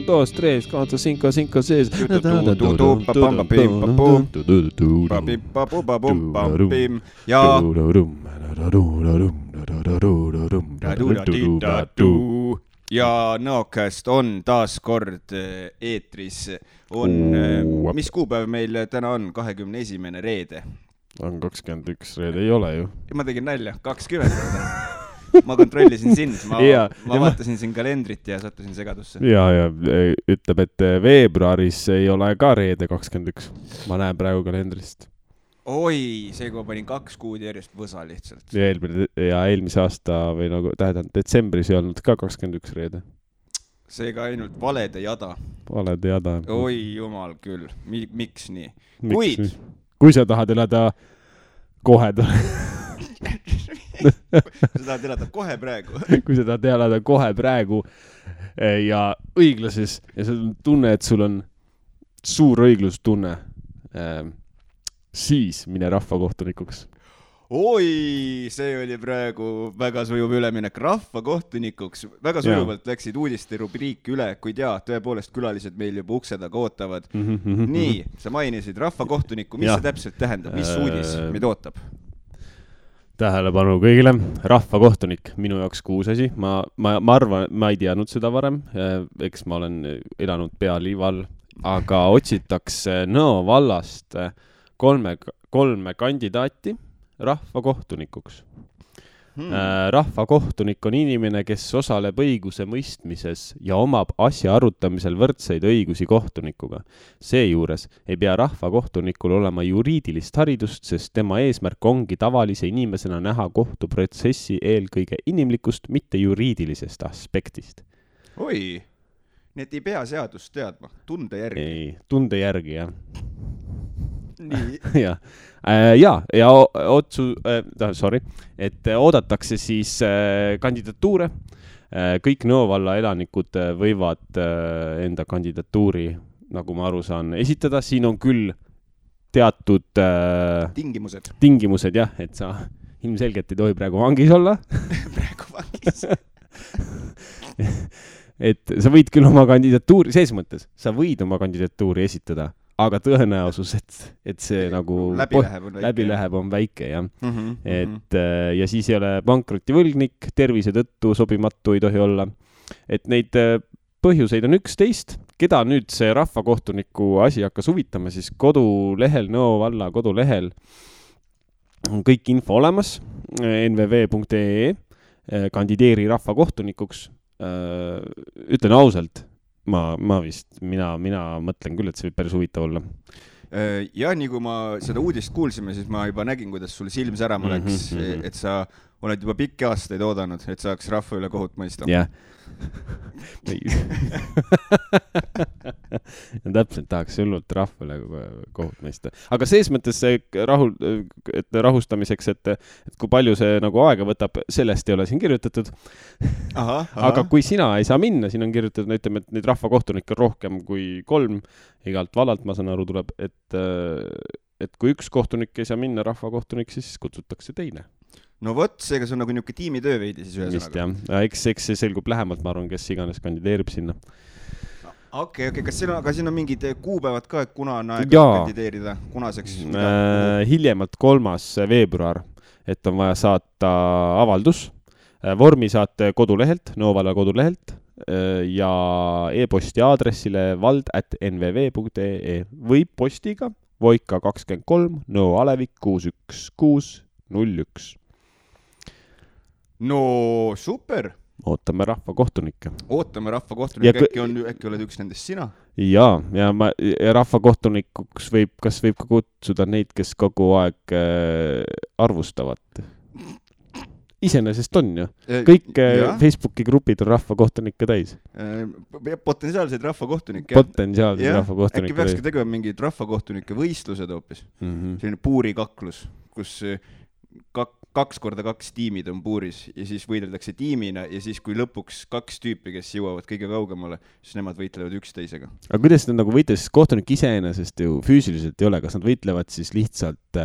2, 3, 4, 5, 5, 6. Ja Nõokast on taas kord eetris. Mis kuupäev meil täna on? 21. reede. On 21 reede, ei ole ju. Ma tegin nalja, 20. Ma kontrollisin sind, ma vaatasin siin kalendrit ja sattusin segadusse. Ja ütleb, et veebruaris ei ole ka reede 21. Ma näen praegu kalendrist. Oi, see kui ma panin 2 kuud järjest võsa lihtsalt. Ja eelmise aasta või nagu tähendab, detsembris ei olnud ka 21 reede. Seega ainult valede jada. Valede jada. Oi, jumal küll. Miks nii? Kui sa tahad elada kohe Kui sa tahad elada kohe praegu. Kui sa tahad elada kohe praegu ja õiglases ja sa tunne, et sul on suur õiglustunne, siis mine rahvakohtunikuks. Oi, see oli praegu väga sujuv üleminek rahvakohtunikuks. Väga sujuvalt läksid uudiste rubriiki üle, kuid tõepoolest külalised meil juba ukse taga ootavad. Nii, sa mainisid rahvakohtuniku. Mis see täpselt tähendab? Mis uudis meid ootab? Tähelepanu kõigile. Rahvakohtunik, minu jaoks kuus asi. Ma arvan, ma ei teadnud seda varem. Eks ma olen elanud pealiival, aga otsitakse Nõo vallast kolme kandidaati rahvakohtunikuks. Rahvakohtunik on inimene, kes osaleb õiguse mõistmises ja omab asja arutamisel võrdseid õigusi kohtunikuga. Seejuures ei pea rahvakohtunikul olema juriidilist haridust, sest tema eesmärk ongi tavalise inimesena näha kohtuprotsessi eelkõige inimlikust, mitte juriidilisest aspektist. Oi, nii et ei pea seadust teadma, tunde järgi. Ei, tunde järgi, jah. Nii. et oodatakse siis kandidatuure. Kõik Nõo valla elanikud võivad enda kandidatuuri, nagu ma aru saan, esitada. Siin on küll teatud tingimused, jah, et sa ilmselgelt ei tohi praegu vangis olla. Praegu vangis. Et sa võid küll oma kandidatuuri, ses mõttes, sa võid oma kandidatuuri esitada, aga tõenäosus, et see nagu läbi läheb on väike, jah. Et, ja siis ei ole pankrotivõlgnik, tervise tõttu sobimatu ei tohi olla. Et neid põhjuseid on 11. Keda nüüd see rahvakohtuniku asi hakkas huvitama, siis kodulehel, Nõo valla kodulehel on kõik info olemas, nvv.ee, kandideeri rahvakohtunikuks. Ütlen ausalt, mina mõtlen küll, et see võib päris huvitav olla. Ja nii kui ma seda uudist kuulsime, siis ma juba nägin, kuidas sul silm särama läks, et sa oled juba pikki aastaid oodanud, et saaks rahva üle kohut mõista. Jah. Ja täpselt tahaks hullult rahva üle kohut mõista. Aga sees mõttes rahustamiseks, et kui palju see nagu aega võtab, sellest ei ole siin kirjutatud. Aga kui sina ei saa minna, siin on kirjutatud, ütleme, et neid rahvakohtunikke on rohkem kui 3, igalt vallalt, ma saan aru, tuleb, et kui üks kohtunik ei saa minna rahvakohtunik, siis kutsutakse teine. No võt, seega see on nagu niuke tiimitöö veidi siis ühesõnaga. Eks see selgub lähemalt, ma arvan, kes iganes kandideerib sinna. Okei, kas siin on mingid kuupäevad ka, et kuna on aeg kandideerida? Kunaseks? Hiljemalt 3. veebruar, et on vaja saata avaldus. Vormi saate kodulehelt, Nõo valla kodulehelt ja e-posti aadressile vald@nvv.ee või postiga Voika 23, Nõo Alevik 61601. No super! Ootame rahvakohtunikke. Äkki oled üks nendest sina? Ja rahvakohtunikuks kas võib ka kutsuda neid, kes kogu aeg arvustavad. Iseenesest on ju. Kõik Facebooki grupid on rahvakohtunikke täis. Potentsiaalseid rahvakohtunikke. Äkki peakski tegema mingid rahvakohtunike võistlused hoopis. Selline puurikaklus, kus 2x2 tiimid on puuris ja siis võideldakse tiimina ja siis kui lõpuks 2 tüüpi, kes jõuavad kõige kaugemale, siis nemad võitlevad üksteisega. Aga kuidas nad nagu võitlevad, sest kohtunik iseenesest ju füüsiliselt ei ole, kas nad võitlevad siis lihtsalt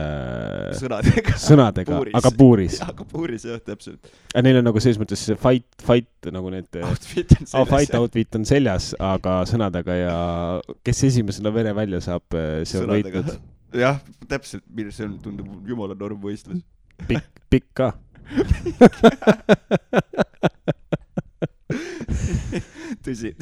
sõnadega aga puuris? Aga puuris, jah, täpselt. Neil on nagu selles mõttes fight nagu need outfit on seljas, aga sõnadega ja kes esimesena vere välja saab, see on võitnud. Jah, täpselt, see on, tundub jumala normvõistlus. Pikk ka. Tõsi.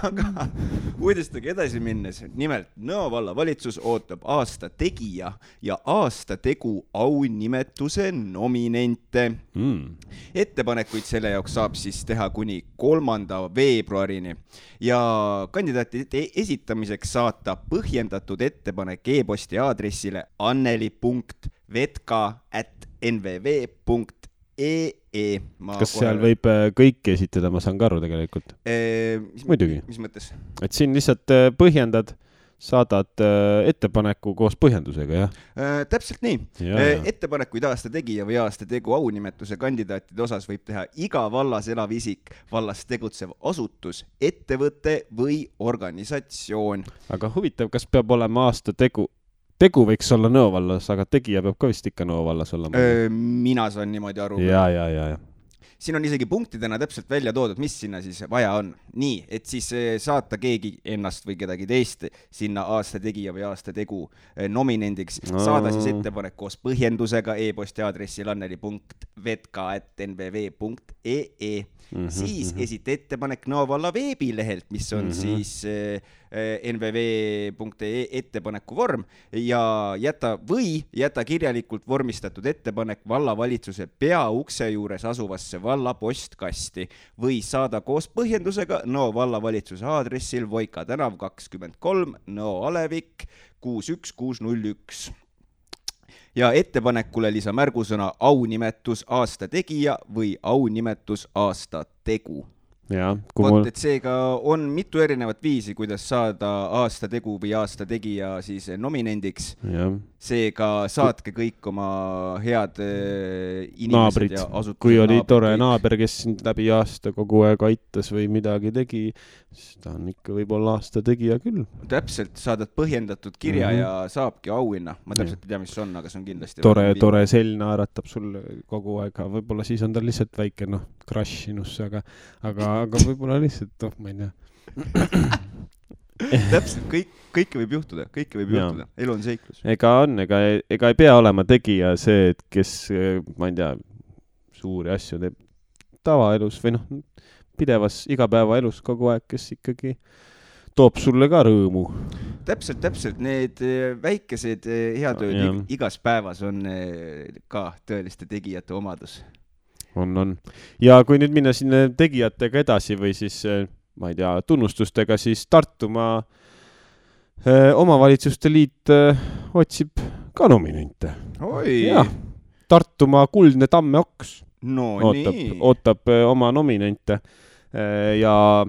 Aga uudistega edasi minnes, nimelt Nõo valla valitsus ootab aasta tegija ja aasta tegu aunimetuse nominente. Ettepanekuid selle jaoks saab siis teha kuni 3. veebruarini ja kandidaatide esitamiseks saata põhjendatud ettepanek e-posti aadressile anneli.vetka@nvv.ee. Kas seal võib kõiki esitada, ma saan ka aru tegelikult? Muidugi. Mis mõttes? Et siin lihtsalt põhjendad, saadad ettepaneku koos põhjendusega, jah? Täpselt nii. Ettepanekuid aasta tegija või aasta tegu aunimetuse kandidaatide osas võib teha iga vallas elav isik, vallas tegutsev asutus, ettevõte või organisatsioon. Aga huvitav, kas peab olema aasta tegu võiks olla Nõo vallas, aga tegija peab ka vist ikka Nõo vallas olla. Mina saan niimoodi aru. Ja. Siin on isegi punktidena täpselt välja toodud, mis sinna siis vaja on. Nii, et siis saata keegi ennast või kedagi teist sinna aasta tegija või aasta tegu nominendiks. Saada siis ettepanek koos põhjendusega e-posti aadressil anneli.vetka@nvv.ee. Siis esita ettepanek Nõo valla veebilehelt, mis on siis nvv.ee ettepaneku vorm ja jäta kirjalikult vormistatud ettepanek vallavalitsuse peaukse juures asuvasse valla postkasti või saada koos põhjendusega Nõo vallavalitsuse aadressil Voika tänav 23 Nõo Alevik 61601. Ja ettepanekule lisa märgusõna aunimetus aasta tegija või aunimetus aasta tegu. Et seega on mitu erinevat viisi, kuidas saada aasta tegu või aasta tegija siis nominendiks. Seega saatke kõik oma head inimesed naabrid. Ja asutused. Kui oli tore naaber, kes sind läbi aasta kogu aeg aitas või midagi tegi, siis ta on ikka võib-olla aasta tegija küll. Täpselt, saadad põhjendatud kirja ja saabki auhinna. Ma täpselt ei tea, mis on, aga see on kindlasti tore sell naeratab sulle kogu aeg. Võib-olla siis on ta lihtsalt väike crush sinusse, aga võib-olla lihtsalt, ma ei tea. Täpselt, kõike võib juhtuda, elu on seiklus. Ega ei pea olema tegija see, et kes, ma ei tea, suuri asju teeb tavaelus või pidevas igapäevaelus kogu aeg, kes ikkagi toob sulle ka rõõmu. Täpselt, need väikesed heatööd igas päevas on ka tõeliste tegijate omadus. On. Ja kui nüüd minna sinna tegijatega edasi või siis, ma ei tea, tunnustustega, siis Tartumaa omavalitsuste liit otsib ka nominente. Tartumaa kuldne tammeoks ootab oma nominente ja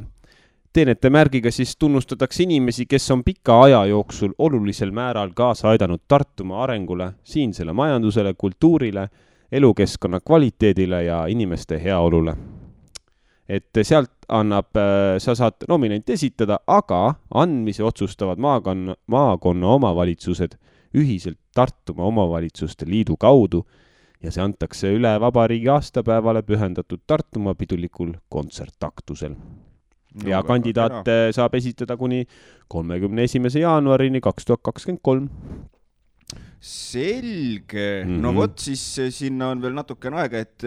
teenete märgiga siis tunnustatakse inimesi, kes on pika aja jooksul olulisel määral kaasa aidanud Tartumaa arengule, siinsele majandusele, kultuurile, elukeskkonna kvaliteedile ja inimeste heaolule. Et sealt sa saad nominenti esitada, aga andmise otsustavad maakonna omavalitsused ühiselt Tartumaa omavalitsuste liidu kaudu ja see antakse üle vabariigi aastapäevale pühendatud Tartumaa pidulikul kontsertaktusel. Ja kandidaate saab esitada kuni 31. jaanuarini 2023. Selge. No vot, siis sinna on veel natukene aega, et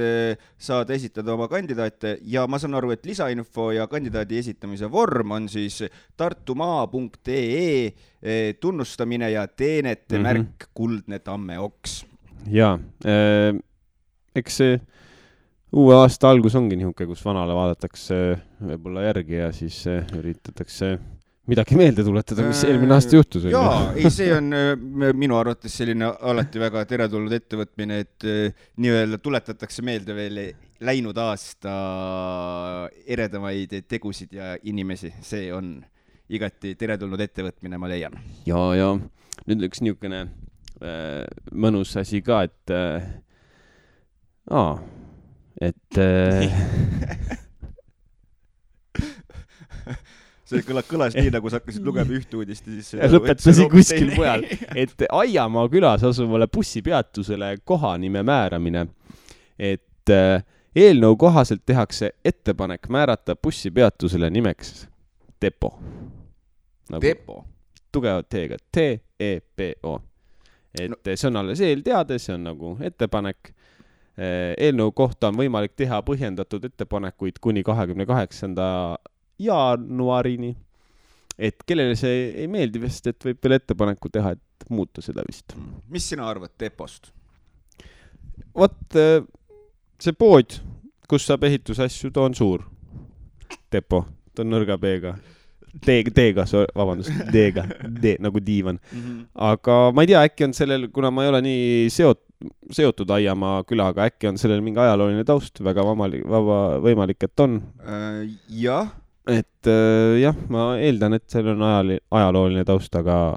saad esitada oma kandidaate ja ma saan aru, et lisainfo ja kandidaadi esitamise vorm on siis tartumaa.ee tunnustamine ja teenete märk kuldne tammeoks. Ja, eks see uue aasta algus ongi nihuke, kus vanale vaadatakse võib-olla järgi ja siis üritatakse midagi meelde tuletada, mis eelmine aasta juhtus. See on minu arvates selline alati väga teretulnud ettevõtmine, et nii-öelda tuletatakse meelde veel läinud aasta eredamaid tegusid ja inimesi. See on igati teretulnud ettevõtmine, ma leian. Ja nüüd üks niisugune mõnus asi ka, et see kõlas nii, nagu sa hakkasid lugema üht uudist ja siis lõpetasin kuskil mujal, et Aiamaa külas asuvale bussipeatusele kohanime määramine, et eelnõu kohaselt tehakse ettepanek määrata bussipeatusele nimeks Depo. Depo? Tugevat T-ga, T-E-P-O. Et see on alles eelteade, see on nagu ettepanek. Eelnõu kohta on võimalik teha põhjendatud ettepanekuid kuni 28. jaanuarini, et kellele see ei meeldi vist, et võib veel ettepaneku teha, et muuta seda vist. Mis sina arvad Depost? Vot see pood, kus saab ehitusasju, ta on suur. Depo, ta on nõrga B-ga. D-ga, vabandust, D-ga, D nagu diivan. Aga ma ei tea, äkki on sellel, kuna ma ei ole nii seotud Aiamaa külaga, äkki on sellel mingi ajalooline taust, väga võimalik, et on. Jah. Et jah, ma eeldan, et seal on ajalooline taust, aga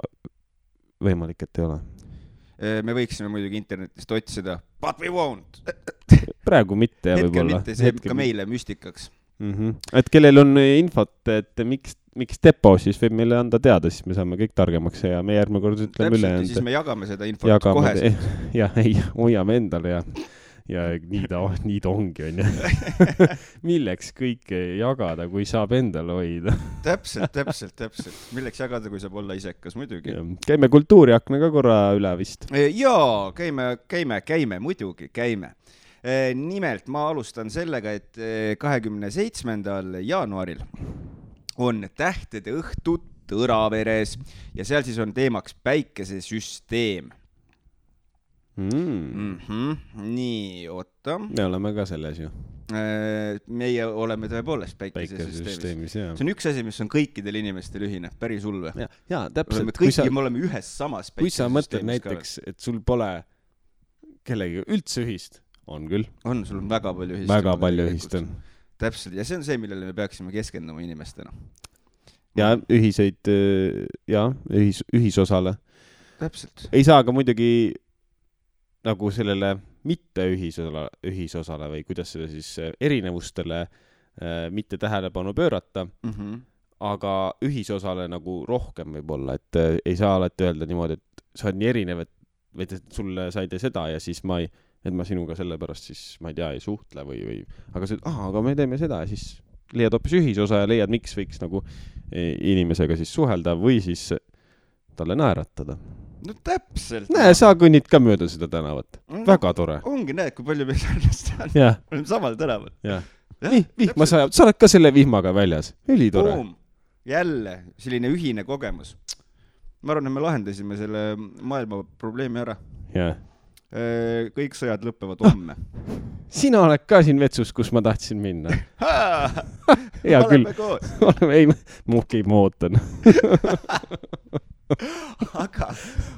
võimalik, et ei ole. Me võiksime muidugi internetist otsida, but we won't. Praegu mitte. Hetkel mitte, see jääb ka meile müstikaks. Et kellel on infot, et miks Depo, siis võib meile anda teada, siis me saame kõik targemaks ja me järgmine kord ütleme üle. Siis me jagame seda infot kohe. Ja ei, hoiame endale ja nii ta ongi, on ju. Milleks kõike jagada, kui saab endale hoida? Täpselt. Milleks jagada, kui saab olla isekas, muidugi. Käime kultuuriaknaga korra üle vist. Jaa, käime, muidugi käime. Nimelt ma alustan sellega, et 27. jaanuaril on tähtede õhtu Tõraveres ja seal siis on teemaks päikesesüsteem. Nii, oota. Me oleme ka selles ju. Meie oleme tõepoolest päikesesüsteemis. See on üks asi, mis on kõikidel inimestel ühine, päris hull. Jaa, täpselt. Me oleme ühes samas päikesesüsteemis. Kui sa mõtled näiteks, et sul pole kellegi üldse ühist, on küll. On, sul on väga palju ühist. Väga palju ühist on. Täpselt, ja see on see, millele me peaksime keskenduma inimestena. Ja ühiseid, ühisosale. Täpselt. Ei saa ka muidugi nagu sellele mitte ühisosale või kuidas seda siis erinevustele mitte tähelepanu pöörata, aga ühisosale nagu rohkem võib olla, et ei saa alati öelda niimoodi, et sa oled nii erinev, et sulle sa ei tee seda ja siis ma sinuga sellepärast siis, ma ei tea, ei suhtle või aga me teeme seda ja siis leiad hoopis ühisosa ja leiad, miks võiks nagu inimesega siis suhelda või siis talle naeratada. No täpselt. Näe, sa kõnnid ka mööda seda tänavat. Väga tore. Ongi, näed, kui palju meil sarnast on. Oleme samal tänaval. Vihma sajab. Sa oled ka selle vihmaga väljas. Üli tore. Jälle, selline ühine kogemus. Ma arvan, et me lahendasime selle maailma probleemi ära. Kõik sõjad lõppevad homme. Sina oled ka siin vetsus, kus ma tahtsin minna. Hea küll. Ei, ma ootan. Aga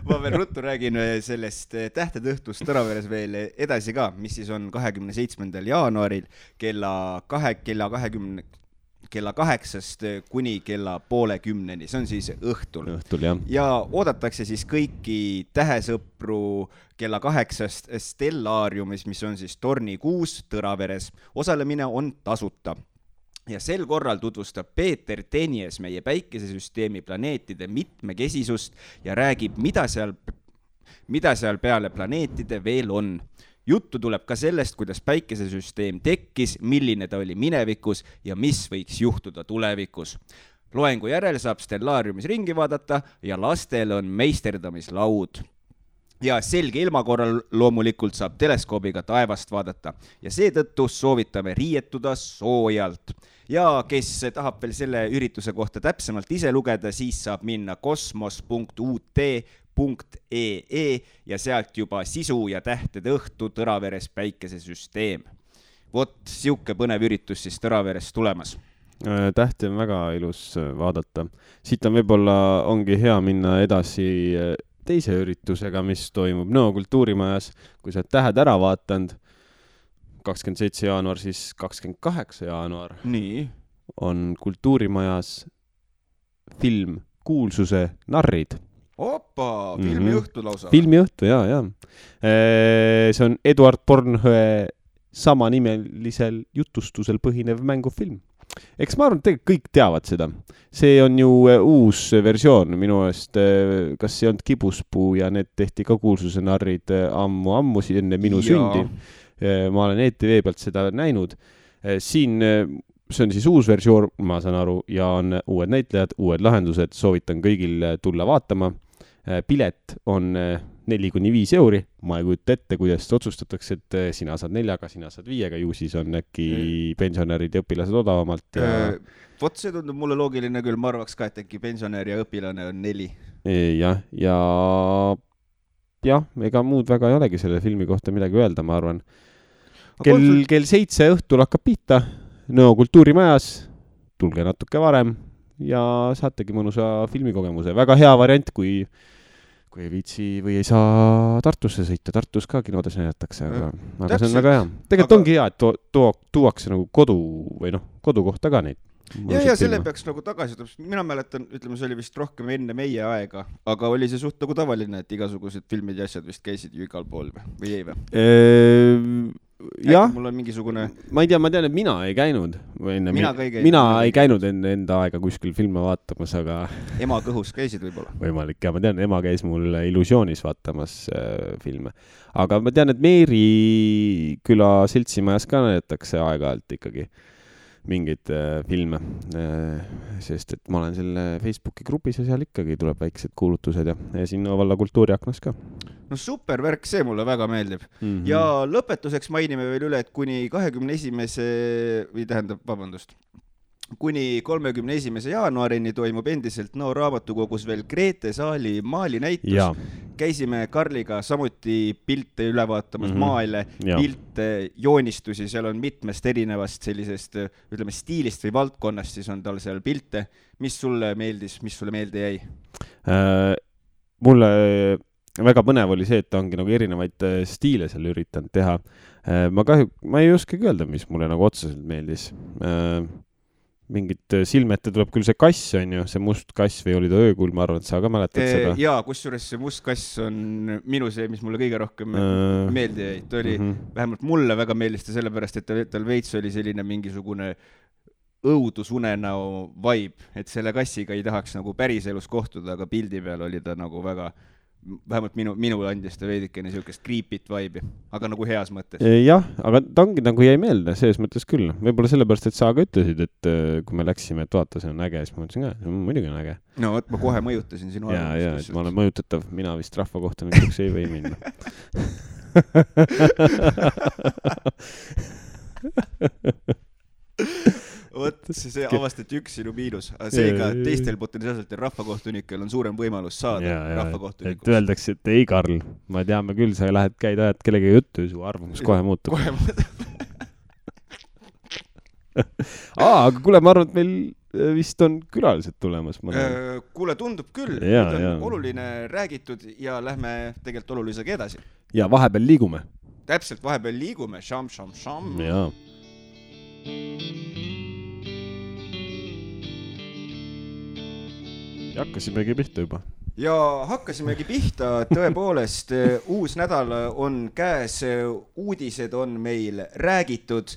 ma veel ruttu räägin sellest tähtede õhtust Tõraveres veel edasi ka, mis siis on 27. jaanuaril kella 8-st kuni kella 9:30. See on siis õhtul. Ja oodatakse siis kõiki tähesõpru kella 8-st Stellaariumis, mis on siis Torni 6 Tõraveres. Osalemine on tasuta. Ja sel korral tutvustab Peeter Tenies meie päikesesüsteemi planeetide mitmekesisust ja räägib, mida seal peale planeetide veel on. Juttu tuleb ka sellest, kuidas päikesesüsteem tekkis, milline ta oli minevikus ja mis võiks juhtuda tulevikus. Loengu järel saab Stellaariumis ringi vaadata ja lastel on meisterdamislaud. Ja selge ilma korral loomulikult saab teleskoobiga taevast vaadata ja seetõttu soovitame riietuda soojalt. Ja kes tahab veel selle ürituse kohta täpsemalt ise lugeda, siis saab minna kosmos.ut.ee ja sealt juba sisu ja tähtede õhtu Tõraveres päikesesüsteem. Vot siuke põnev üritus siis Tõraveres tulemas. Tähti on väga ilus vaadata. Siit on võib-olla ongi hea minna edasi teise üritusega, mis toimub Nõo kultuurimajas, kui sa tähed ära vaatanud 27. jaanuar, siis 28. jaanuar Nii. On kultuurimajas film Kuulsuse narrid. Filmiõhtu lausa. Filmiõhtu, jaa. See on Eduard Bornhöe samanimelisel jutustusel põhinev mängufilm. Eks ma arvan, et tegelikult kõik teavad seda. See on ju uus versioon minu eest, kas see on Kibuspuu ja need tehti ka kuulsuse narrid ammu enne minu sündi. Ma olen ETV pealt seda näinud. Siin see on siis uus versioon, ma saan aru, ja on uued näitlejad, uued lahendused, soovitan kõigil tulla vaatama. Pilet on 4-5 €, ma ei kujuta ette, kuidas otsustatakse, et sina saad 4, sina saad 5, ju siis on äkki pensionärid ja õpilased odavamalt. Ja... Vot see tundub mulle loogiline küll, ma arvaks ka, et äkki pensionär ja õpilane on 4. Ja ega muud väga ei olegi selle filmi kohta midagi öelda, ma arvan. Kell 7 õhtul hakkab pihta, Nõo kultuurimajas, tulge natuke varem ja saategi mõnusa filmikogemuse. Väga hea variant, kui ei viitsi või ei saa Tartusse sõita. Tartus ka kinodes näidatakse, aga see on väga hea. Tegelikult ongi hea, et tuuakse nagu kodukohta ka neid. Ja selle peaks nagu tagasi, mina mäletan, ütleme, see oli vist rohkem enne meie aega, aga oli see suht nagu tavaline, et igasugused filmid ja asjad vist käisid ju igal pool või ei või? Jah, mul on mingisugune... ma tean, et mina ei käinud. Mina ei käinud enda aega kuskil filme vaatamas, aga... Ema kõhus käisid võib-olla? Võimalik, ja ma tean, ema käis mul Illusioonis vaatamas filme. Aga ma tean, et Meeri küla seltsimajas ka näidatakse aeg-ajalt ikkagi mingeid filme, sest et ma olen selle Facebooki grupis ja seal ikkagi tuleb väiksed kuulutused ja sinna valla kultuuriaknas ka. No super värk, see mulle väga meeldib. Ja lõpetuseks mainime veel üle, et kuni 31. jaanuarini toimub endiselt Nõo raamatukogus veel Grete Saali maalinäitus. Ja. Käisime Karliga samuti pilte üle vaatamas, maale, pilte, joonistusi, seal on mitmest erinevast sellisest, ütleme, stiilist või valdkonnast, siis on tal seal pilte. Mis sulle meeldis, mis sulle meelde jäi? Mulle väga põnev oli see, et ta ongi nagu erinevaid stiile seal üritanud teha. Ma ei oskagi öelda, mis mulle nagu otseselt meeldis. Mingit silmete tuleb küll see kass on ju, see must kass või oli ta öökuul, ma arvan, et sa ka mäletad seda. Jaa, kusjuures see must kass on minu see, mis mulle kõige rohkem meeldi jäi. Ta oli, vähemalt mulle väga meeldis ta sellepärast, et tal veits oli selline mingisugune õudusunenäo vibe, et selle kassiga ei tahaks nagu päris elus kohtuda, aga pildi peal oli ta nagu väga... vähemalt minu andis ta veidikene niisugust creepit vibe'i, aga nagu heas mõttes. Jah, aga ta ongi nagu jäi meelde, selles mõttes küll. Võib-olla sellepärast, et sa ka ütlesid, et kui me läksime, et vaata, see on äge, siis ma mõtlesin ka, see on muidugi on äge. No, et ma kohe mõjutasin sinu arvamust. Ja, et ma olen mõjutatav, mina vist rahva kohta mingiks ei või minna. Vot, see avastati üks sinu miinus. Seega teistel potentsiaalselt rahvakohtunikel on suurem võimalus saada rahvakohtunikuks. Et öeldakse, et ei, Karl, ma teame küll, sa käid ajad kellega juttu ja su arvamus kohe muutub. Aga kuule, ma arvan, et meil vist on külalised tulemas. Kuule, tundub küll. On oluline räägitud ja lähme tegelikult olulisega edasi. Ja vahepeal liigume. Täpselt, vahepeal liigume. Sham. Jaa. Ja hakkasimegi pihta juba. Ja hakkasimegi pihta, tõepoolest, uus nädal on käes, uudised on meil räägitud,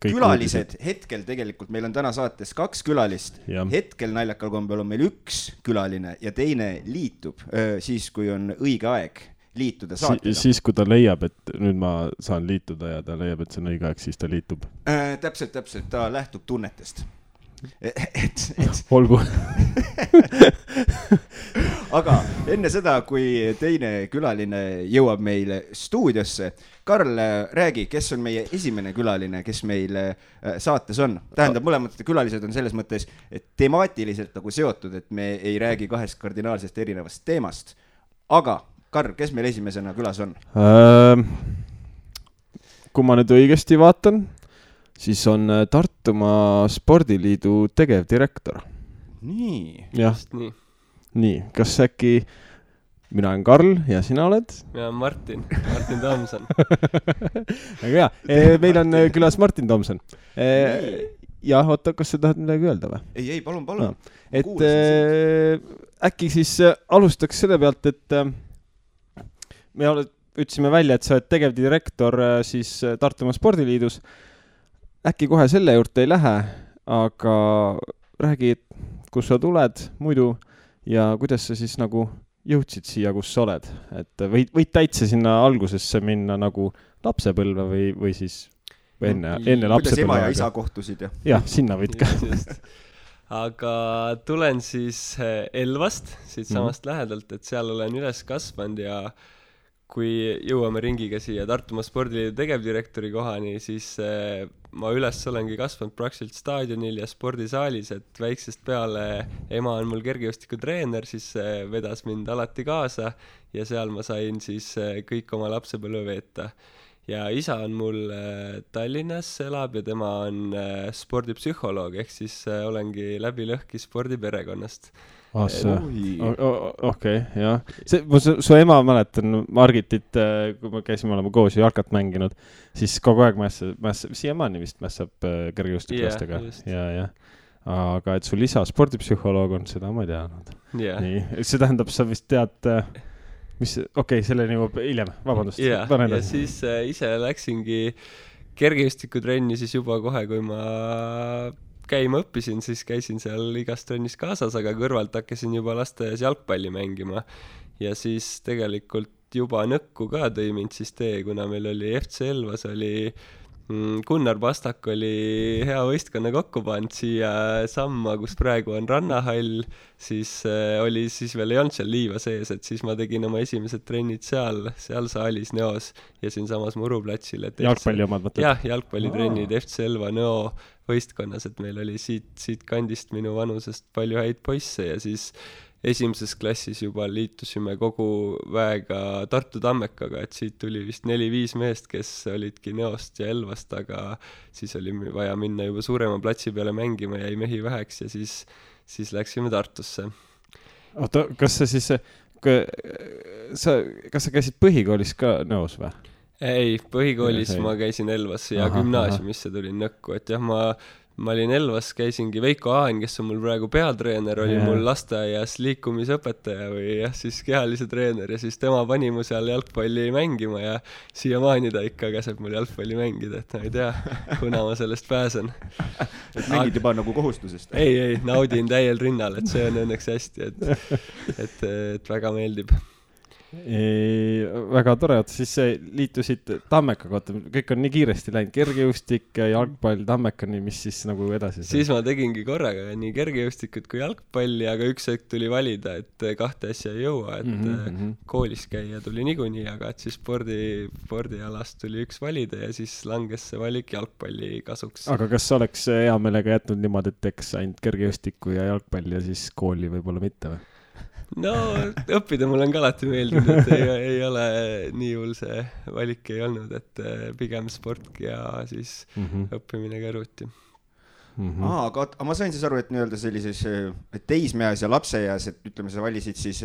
külalised, hetkel tegelikult meil on täna saates 2 külalist, hetkel naljakal kombel on meil 1 külaline ja teine liitub siis, kui on õige aeg liituda saatega. Siis, kui ta leiab, et nüüd ma saan liituda ja ta leiab, et see on õige aeg, siis ta liitub. Täpselt, ta lähtub tunnetest. Olgu. Aga enne seda, kui teine külaline jõuab meile stuudiosse, Karl, räägi, kes on meie esimene külaline, kes meil saates on? Tähendab, mõlemad külalised on selles mõttes, et temaatiliselt nagu seotud, et me ei räägi 2 kardinaalsest erinevast teemast. Aga, Karl, kes meil esimesena külas on? Kui ma nüüd õigesti vaatan, siis on Tartumaa Spordiliidu tegevdirektor. Nii. Jah, nii. Kas äkki mina olen Karl ja sina oled? Mina olen Martin Tomson. Aga hea, meil on külas Martin Tomson. Ja, oota, kas sa tahad midagi öelda või? Ei, palun. No. Et äkki siis alustaks selle pealt, et ütlesime välja, et sa oled tegevdirektor siis Tartumaa Spordiliidus. Äkki kohe selle juurde ei lähe, aga räägi, kus sa tuled muidu ja kuidas sa siis nagu jõudsid siia, kus sa oled. Et võid täitsa sinna algusesse minna nagu lapsepõlve või siis enne lapsepõlve. Kuidas ema ja isa kohtusid? Jah, sinna võid ka. Aga tulen siis Elvast, siit samast lähedalt, et seal olen üles kasvanud ja kui jõuame ringiga siia Tartumaa Spordiliidu tegevdirektori kohani, siis ma üles olengi kasvanud praktiliselt staadionil ja spordisaalis, et väiksest peale ema on mul kergejõustikutreener, siis vedas mind alati kaasa ja seal ma sain siis kõik oma lapsepõlve veeta. Ja isa on mul Tallinnas elab ja tema on spordipsühholoog, ehk siis olengi läbi lõhki spordiperekonnast. Okei, jah. Su ema mäletan Margitit, kui me käisime olema koos ja jalkat mänginud, siis kogu aeg siiamaani vist mässab kergejõustiklastega. Ja. Aga et sul isa spordipsühholoog on, seda ma ei teadnud. Nii, see tähendab, sa vist tead... selleni juba hiljem, vabandust. Ja siis ise läksingi kergejõustikutrenni siis juba kohe, kui ma käima õppisin, siis käisin seal igas trennis kaasas, aga kõrvalt hakkasin juba lasteaias jalgpalli mängima. Ja siis tegelikult juba nõkku ka tõi mind siis kuna meil oli FC Elvas, oli Gunnar Pastak oli hea võistkonna kokku pannud siia samma, kus praegu on rannahall, siis oli siis veel ei olnud seal liiva sees, et siis ma tegin oma esimesed trennid seal saalis Neos ja siin samas Muruplatsil. Jalgpalli omad mõtled? Jah, jalgpallitrennid FC Elva Neo võistkonnas, et meil oli siit kandist minu vanusest palju häid poisse ja siis esimeses klassis juba liitusime kogu väega Tartu Tammekaga, et siit tuli vist 4-5 meest, kes olidki Neost ja Elvast, aga siis oli vaja minna juba suurema platsi peale mängima, jäi mehi väheks ja siis läksime Tartusse. Oota, kas sa käisid põhikoolis ka Neos või? Ei, põhikoolis ma käisin Elvas ja gümnaasiumisse tulin nõkku, et jah, ma olin Elvas, käisingi Veiko Haan, kes on mul praegu peatreener, oli mul lasteaias liikumisõpetaja või jah, siis kehalise treener ja siis tema pani mu seal jalgpalli mängima ja siiamaani ta ikka käseb mul jalgpalli mängida, et ma ei tea, kuna ma sellest pääsen. Et mängid juba nagu kohustusest? Ei, naudin täiel rinnal, et see on õnneks hästi, et väga meeldib. Väga tore, siis liitusid Tammeka kohta, kõik on nii kiiresti läinud, kergejõustik, jalgpall, Tammekani, mis siis nagu edasi? Siis ma tegingi korraga nii kergejõustikut kui jalgpalli, aga üks hetk tuli valida, et kahte asja ei jõua, et koolis käia tuli niikuinii, aga et siis spordialast tuli üks valida ja siis langes see valik jalgpalli kasuks. Aga kas oleks hea meelega jätnud niimoodi, et eks ainult kergejõustiku ja jalgpalli ja siis kooli võib-olla mitte või? No, õppida mul on ka alati meeldinud, et ei ole nii hull see valik ei olnud, et pigem sport ja siis õppimine kõrvuti. Aga ma sain siis aru, et nii-öelda sellises teismeas ja lapseeas, et ütleme, sa valisid siis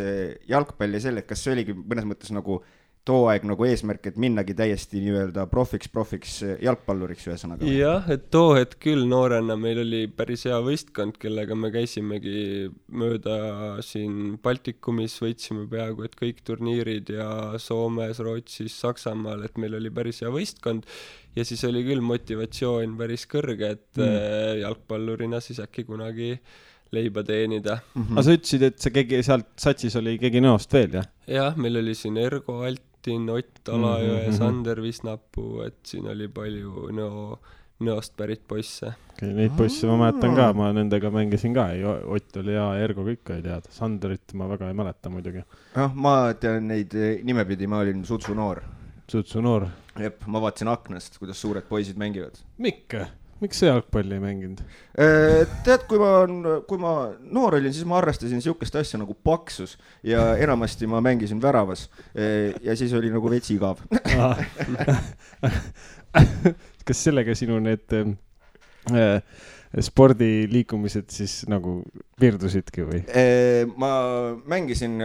jalgpalli selle, et kas see oligi mõnes mõttes nagu too aeg nagu eesmärk, et minnagi täiesti nii-öelda profiks jalgpalluriks ühesõnaga? Jah, et too hetk küll noorena meil oli päris hea võistkond, kellega me käisimegi mööda siin Baltikumis, võitsime peaaegu et kõik turniirid ja Soomes, Rootsis, Saksamaal, et meil oli päris hea võistkond ja siis oli küll motivatsioon päris kõrge, et jalgpallurina siis äkki kunagi leiba teenida. Aga sa ütlesid, et see sealt satsis oli keegi Neost veel, jah? Jah, meil oli siin Ergo Altin, Ott Alajõe, Sander Visnapuu, et siin oli palju Neost pärit poisse. Neid poisse ma mäletan ka, ma nendega mängisin ka, Ott oli ja Ergo kõik ei teada. Sanderit ma väga ei mäleta muidugi. Ma tean neid nimepidi, ma olin Sutsu noor. Sutsu noor? Jep, ma vaatasin aknast, kuidas suured poisid mängivad. Miks sa jalgpalli ei mänginud? Tead, kui ma noor olin, siis ma arvestasin niisugust asja nagu paksus ja enamasti ma mängisin väravas ja siis oli nagu veits igav. Kas sellega sinu need spordiliikumised siis nagu piirdusidki või? Ma mängisin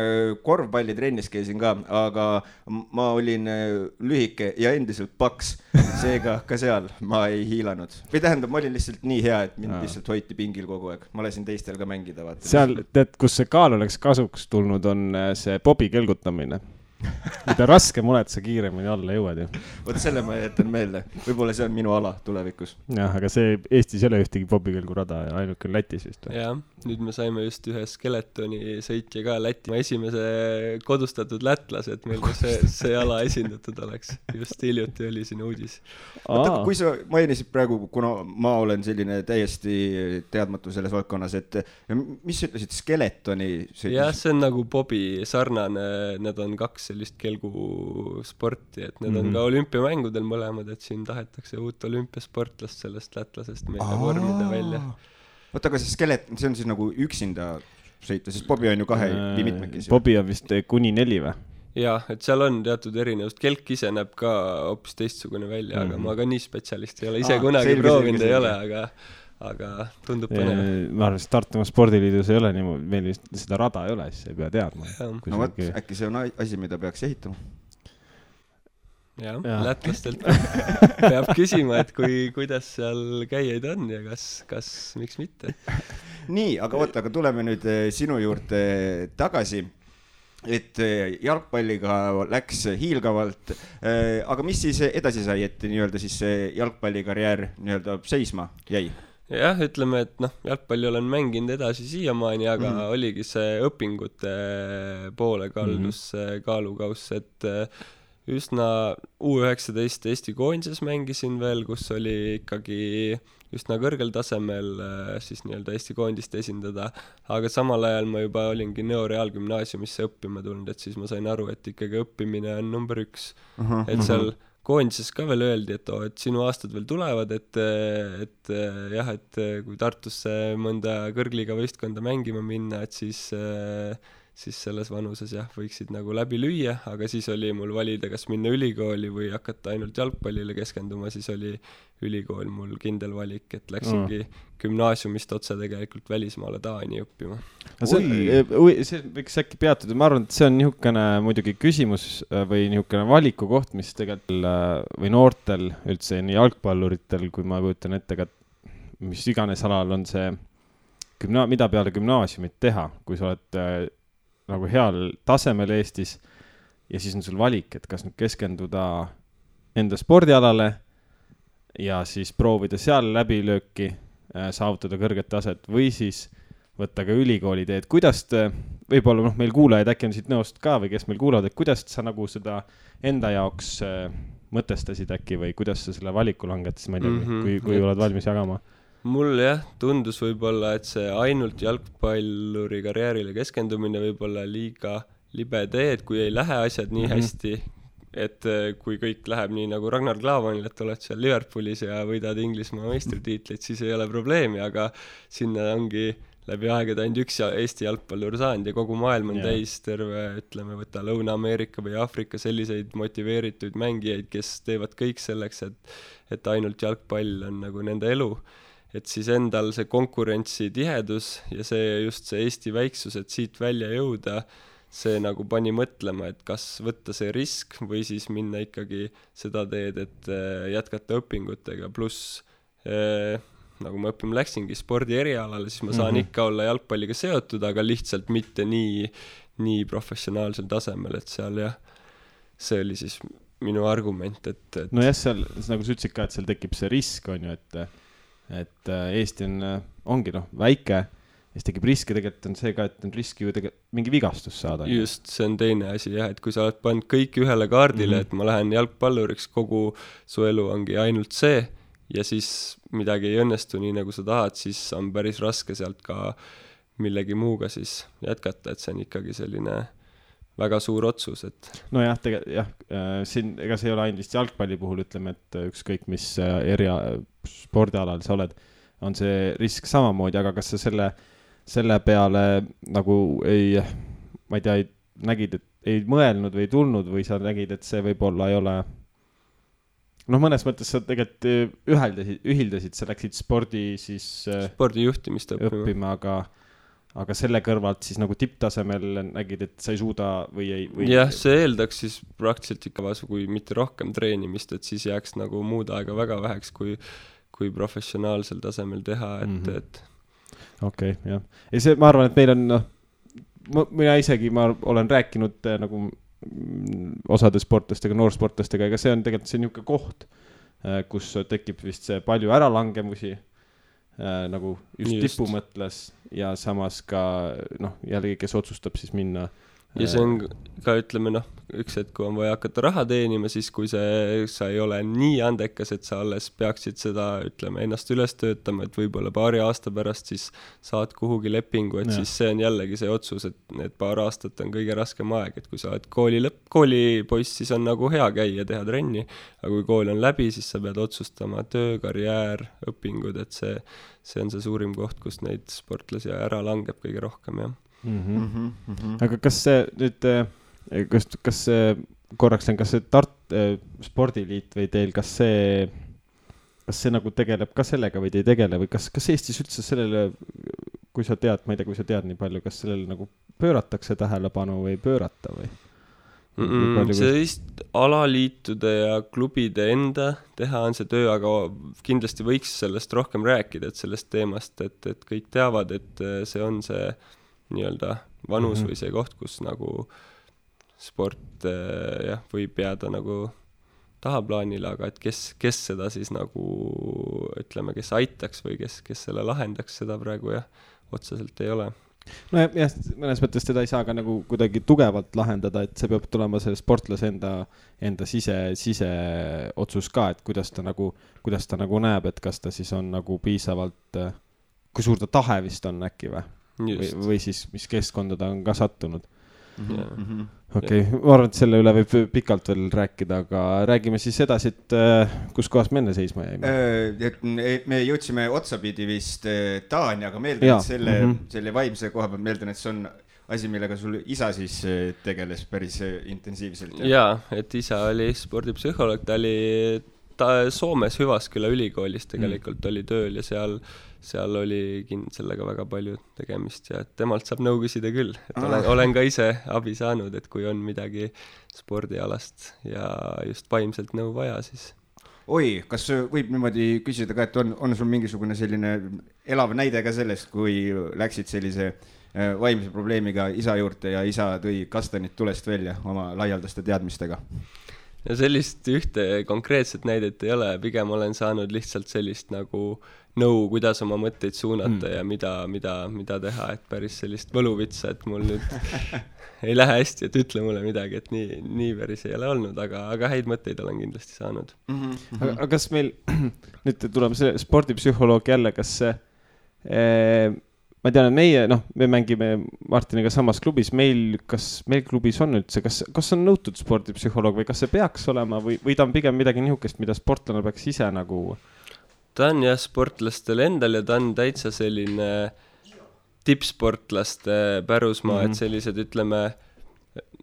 korvpallitrennis, käisin ka, aga ma olin lühike ja endiselt paks, seega ka seal ma ei hiilanud. Või tähendab, ma olin lihtsalt nii hea, et mind lihtsalt hoiti pingil kogu aeg. Ma lasin teistel ka mängida. Vaata. Seal, tead, kus see kaal oleks kasuks tulnud, on see bobi kelgutamine. mida raskem oled, sa kiiremini alla jõuad ju. Võt selle ma jätan meelde. Võib-olla see on minu ala tulevikus. Jah, aga see Eestis ei ole ühtegi bobikõlgurada ja ainuke on Lätis vist. Jah, nüüd me saime just ühe skeletoni sõitja ka Läti. Esimese kodustatud lätlase, et meil see ala esindatud oleks. Just hiljuti oli siin uudis. Võtta, kui sa mainisid praegu, kuna ma olen selline täiesti teadmatu selles valdkonnas, et mis sa ütlesid, skeletoni sõitis? Jah, see on nagu bobi sarnane, need on 2 sellist kelgusporti, et need on ka olümpiamängudel mõlemad, et siin tahetakse uut olümpiasportlast sellest lätlasest meile vormida välja. Võtta, aga see skeleton, see on siis nagu üksinda sõita, sest bobi on ju 2 või mitmekesi. Bobi on vist kuni 4 või? Jah, et seal on teatud erinevust. Kelk ise näeb ka hoopis teistsugune välja, aga ma ka nii spetsialist ei ole. Ise kunagi proovinud ei ole, aga tundub põnev. Ma arvan, et Tartumaa spordiliidus ei ole nii, meil seda rada ei ole, siis ei pea teadma. No võt, äkki see on asi, mida peaks ehitama. Jah, lätlastelt peab küsima, et kuidas seal käijaid on ja kas miks mitte. Nii, aga tuleme nüüd sinu juurde tagasi. Et jalgpalliga läks hiilgavalt, aga mis siis edasi sai, et nii-öelda siis jalgpallikarjäär nii-öelda seisma jäi? Jah, ütleme, et jalgpalli olen mänginud edasi siiamaani, aga oligi see õpingute poole kaldus kaalukaus, et üsna U19 Eesti koondises mängisin veel, kus oli ikkagi üsna kõrgel tasemel siis nii-öelda Eesti koondist esindada, aga samal ajal ma juba olingi Nõo Reaalgümnaasiumisse õppima tulnud, et siis ma sain aru, et ikkagi õppimine on number 1. Et seal koondises ka veel öeldi, et sinu aastad veel tulevad, et kui Tartusse mõnda kõrgliga võistkonda mängima minna, et siis selles vanuses võiksid nagu läbi lüüa, aga siis oli mul valida, kas minna ülikooli või hakata ainult jalgpallile keskenduma, siis oli ülikool mul kindel valik, et läksingi gümnaasiumist otse tegelikult välismaale Taani õppima. See võiks äkki peatuda, ma arvan, et see on niisugune muidugi küsimus või niisugune valiku koht, mis tegelikult või noortel üldse nii jalgpalluritel, kui ma kujutan ette, mis iganes alal on see, mida peale gümnaasiumit teha, kui sa oled nagu heal tasemel Eestis ja siis on sul valik, et kas nüüd keskenduda enda spordialale ja siis proovida seal läbilööki, saavutada kõrget taset või siis võtta ka ülikooli teed. Kuidas võib-olla meil kuulajaid äkki on siit Nõost ka või kes meil kuulavad, et kuidas sa nagu seda enda jaoks mõtestasid äkki või kuidas sa selle valiku langetasid, ma ei tea, kui oled valmis jagama? Mul tundus võib-olla, et see ainult jalgpalluri karjäärile keskendumine võib-olla liiga libe tee, et kui ei lähe asjad nii hästi, et kui kõik läheb nii nagu Ragnar Klavanil, et oled seal Liverpoolis ja võidad Inglismaa meistritiitleid, siis ei ole probleemi, aga sinna ongi läbi aegade ainult üks Eesti jalgpallur saanud ja kogu maailm on täis terve, ütleme, võtta Lõuna-Ameerika või Aafrika selliseid motiveeritud mängijaid, kes teevad kõik selleks, et ainult jalgpall on nagu nende elu. Et siis endal see konkurentsi tihedus ja just see Eesti väiksus, et siit välja jõuda, see nagu pani mõtlema, et kas võtta see risk või siis minna ikkagi seda teed, et jätkata õpingutega, pluss nagu ma läksingi spordi erialale, siis ma saan ikka olla jalgpalliga seotud, aga lihtsalt mitte nii professionaalsel tasemel, et seal see oli siis minu argument, et no jah, seal, nagu sa ütlesid ka, et seal tekib see risk, on ju, et Eesti ongi väike, siis tekib riski, tegelikult on see ka, et on riski ju mingi vigastus saada. Just, see on teine asi et kui sa oled pannud kõik ühele kaardile, et ma lähen jalgpalluriks, kogu su elu ongi ainult see ja siis midagi ei õnnestu nii, nagu sa tahad, siis on päris raske sealt ka millegi muuga siis jätkata, et see on ikkagi selline väga suur otsus, et nojah, siin ega see ei ole ainult vist jalgpalli puhul, ütleme, et ükskõik mis spordialal sa oled, on see risk samamoodi, aga kas sa selle peale nagu ma ei tea, nägid, et ei mõelnud või tulnud või sa nägid, et see võib-olla ei ole mõnes mõttes sa tegelikult ühildasid, sa läksid spordijuhtimist õppima, aga selle kõrvalt siis nagu tipptasemel nägid, et sa ei suuda või ei... Jah, see eeldaks siis praktiliselt ikka kui mitte rohkem treenimist, et siis jääks nagu muud aega väga väheks, kui professionaalsel tasemel teha, et Okei, jah. Ja see, ma arvan, et meil on, mina isegi, ma olen rääkinud nagu osade sportlastega, noorsportlastega, ega see on tegelikult see niisugune koht, kus tekib vist see palju äralangemusi, nagu just tipu mõtles ja samas ka jällegi, kes otsustab siis minna. Ja see on ka, ütleme, üks hetk, kui on vaja hakata raha teenima, siis kui sa ei ole nii andekas, et sa alles peaksid seda, ütleme, ennast üles töötama, et võib-olla paari aasta pärast siis saad kuhugi lepingu, et siis see on jällegi see otsus, et need paar aastat on kõige raskem aeg, et kui sa oled koolipoiss, siis on nagu hea käia, teha trenni, aga kui kool on läbi, siis sa pead otsustama töö, karjäär, õpingud, et see on see suurim koht, kus neid sportlasi ära langeb kõige rohkem, jah. Aga kas see nüüd, kas see korraks on, kas see spordiliit või teil, kas see nagu tegeleb ka sellega või te ei tegele või kas Eestis üldse sellele, kui sa tead, ma ei tea, kui sa tead nii palju, kas sellele nagu pööratakse tähelepanu või pöörata või? See vist alaliitude ja klubide enda teha on see töö, aga kindlasti võiks sellest rohkem rääkida, et sellest teemast, et kõik teavad, et see on see nii-öelda vanus või see koht, kus nagu sport võib jääda nagu tahaplaanile, aga et kes seda siis nagu, ütleme, kes aitaks või kes selle lahendaks, seda praegu otseselt ei ole. No jah, mõnes mõttes teda ei saa ka nagu kuidagi tugevalt lahendada, et see peab tulema selle sportlase enda sise otsus ka, et kuidas ta nagu näeb, et kas ta siis on nagu piisavalt, kui suur ta tahe vist on äkki või siis mis keskkonda ta on ka sattunud. Okei, ma arvan, et selle üle võib pikalt veel rääkida, aga räägime siis edasi, et kus kohas me enne seisma jäime. Me jõudsime otsapidi vist Taani, aga meeldan, et selle vaimse koha peal meeldan, et see on asi, millega sul isa siis tegeles päris intensiivselt. Jaa, et isa oli spordipsühholoog, ta oli Soomes Hüvasküla ülikoolis tegelikult oli tööl ja seal oli sellega väga palju tegemist ja temalt saab nõu küsida küll, et olen ka ise abi saanud, et kui on midagi spordialast ja just vaimselt nõu vaja, siis kas võib niimoodi küsida ka, et on sul mingisugune selline elav näide ka sellest, kui läksid sellise vaimse probleemiga isa juurde ja isa tõi kastanid tulest välja oma laialdaste teadmistega? Ja sellist ühte konkreetset näidet ei ole, pigem olen saanud lihtsalt sellist nagu nõu, kuidas oma mõtteid suunata ja mida teha, et päris sellist võluvitsa, et mul nüüd ei lähe hästi, et ütle mulle midagi, et nii päris ei ole olnud, aga häid mõtteid olen kindlasti saanud. Aga kas meil, nüüd tuleme selle spordipsühholoog jälle, kas ma tean, et me mängime Martiniga samas klubis, kas meil klubis on üldse, kas on nõutud spordipsühholoog või kas see peaks olema või ta on pigem midagi nihukest, mida sportlane peaks ise nagu? Ta on sportlastel endal ja ta on täitsa selline tippsportlaste pärusmaa, et sellised, ütleme,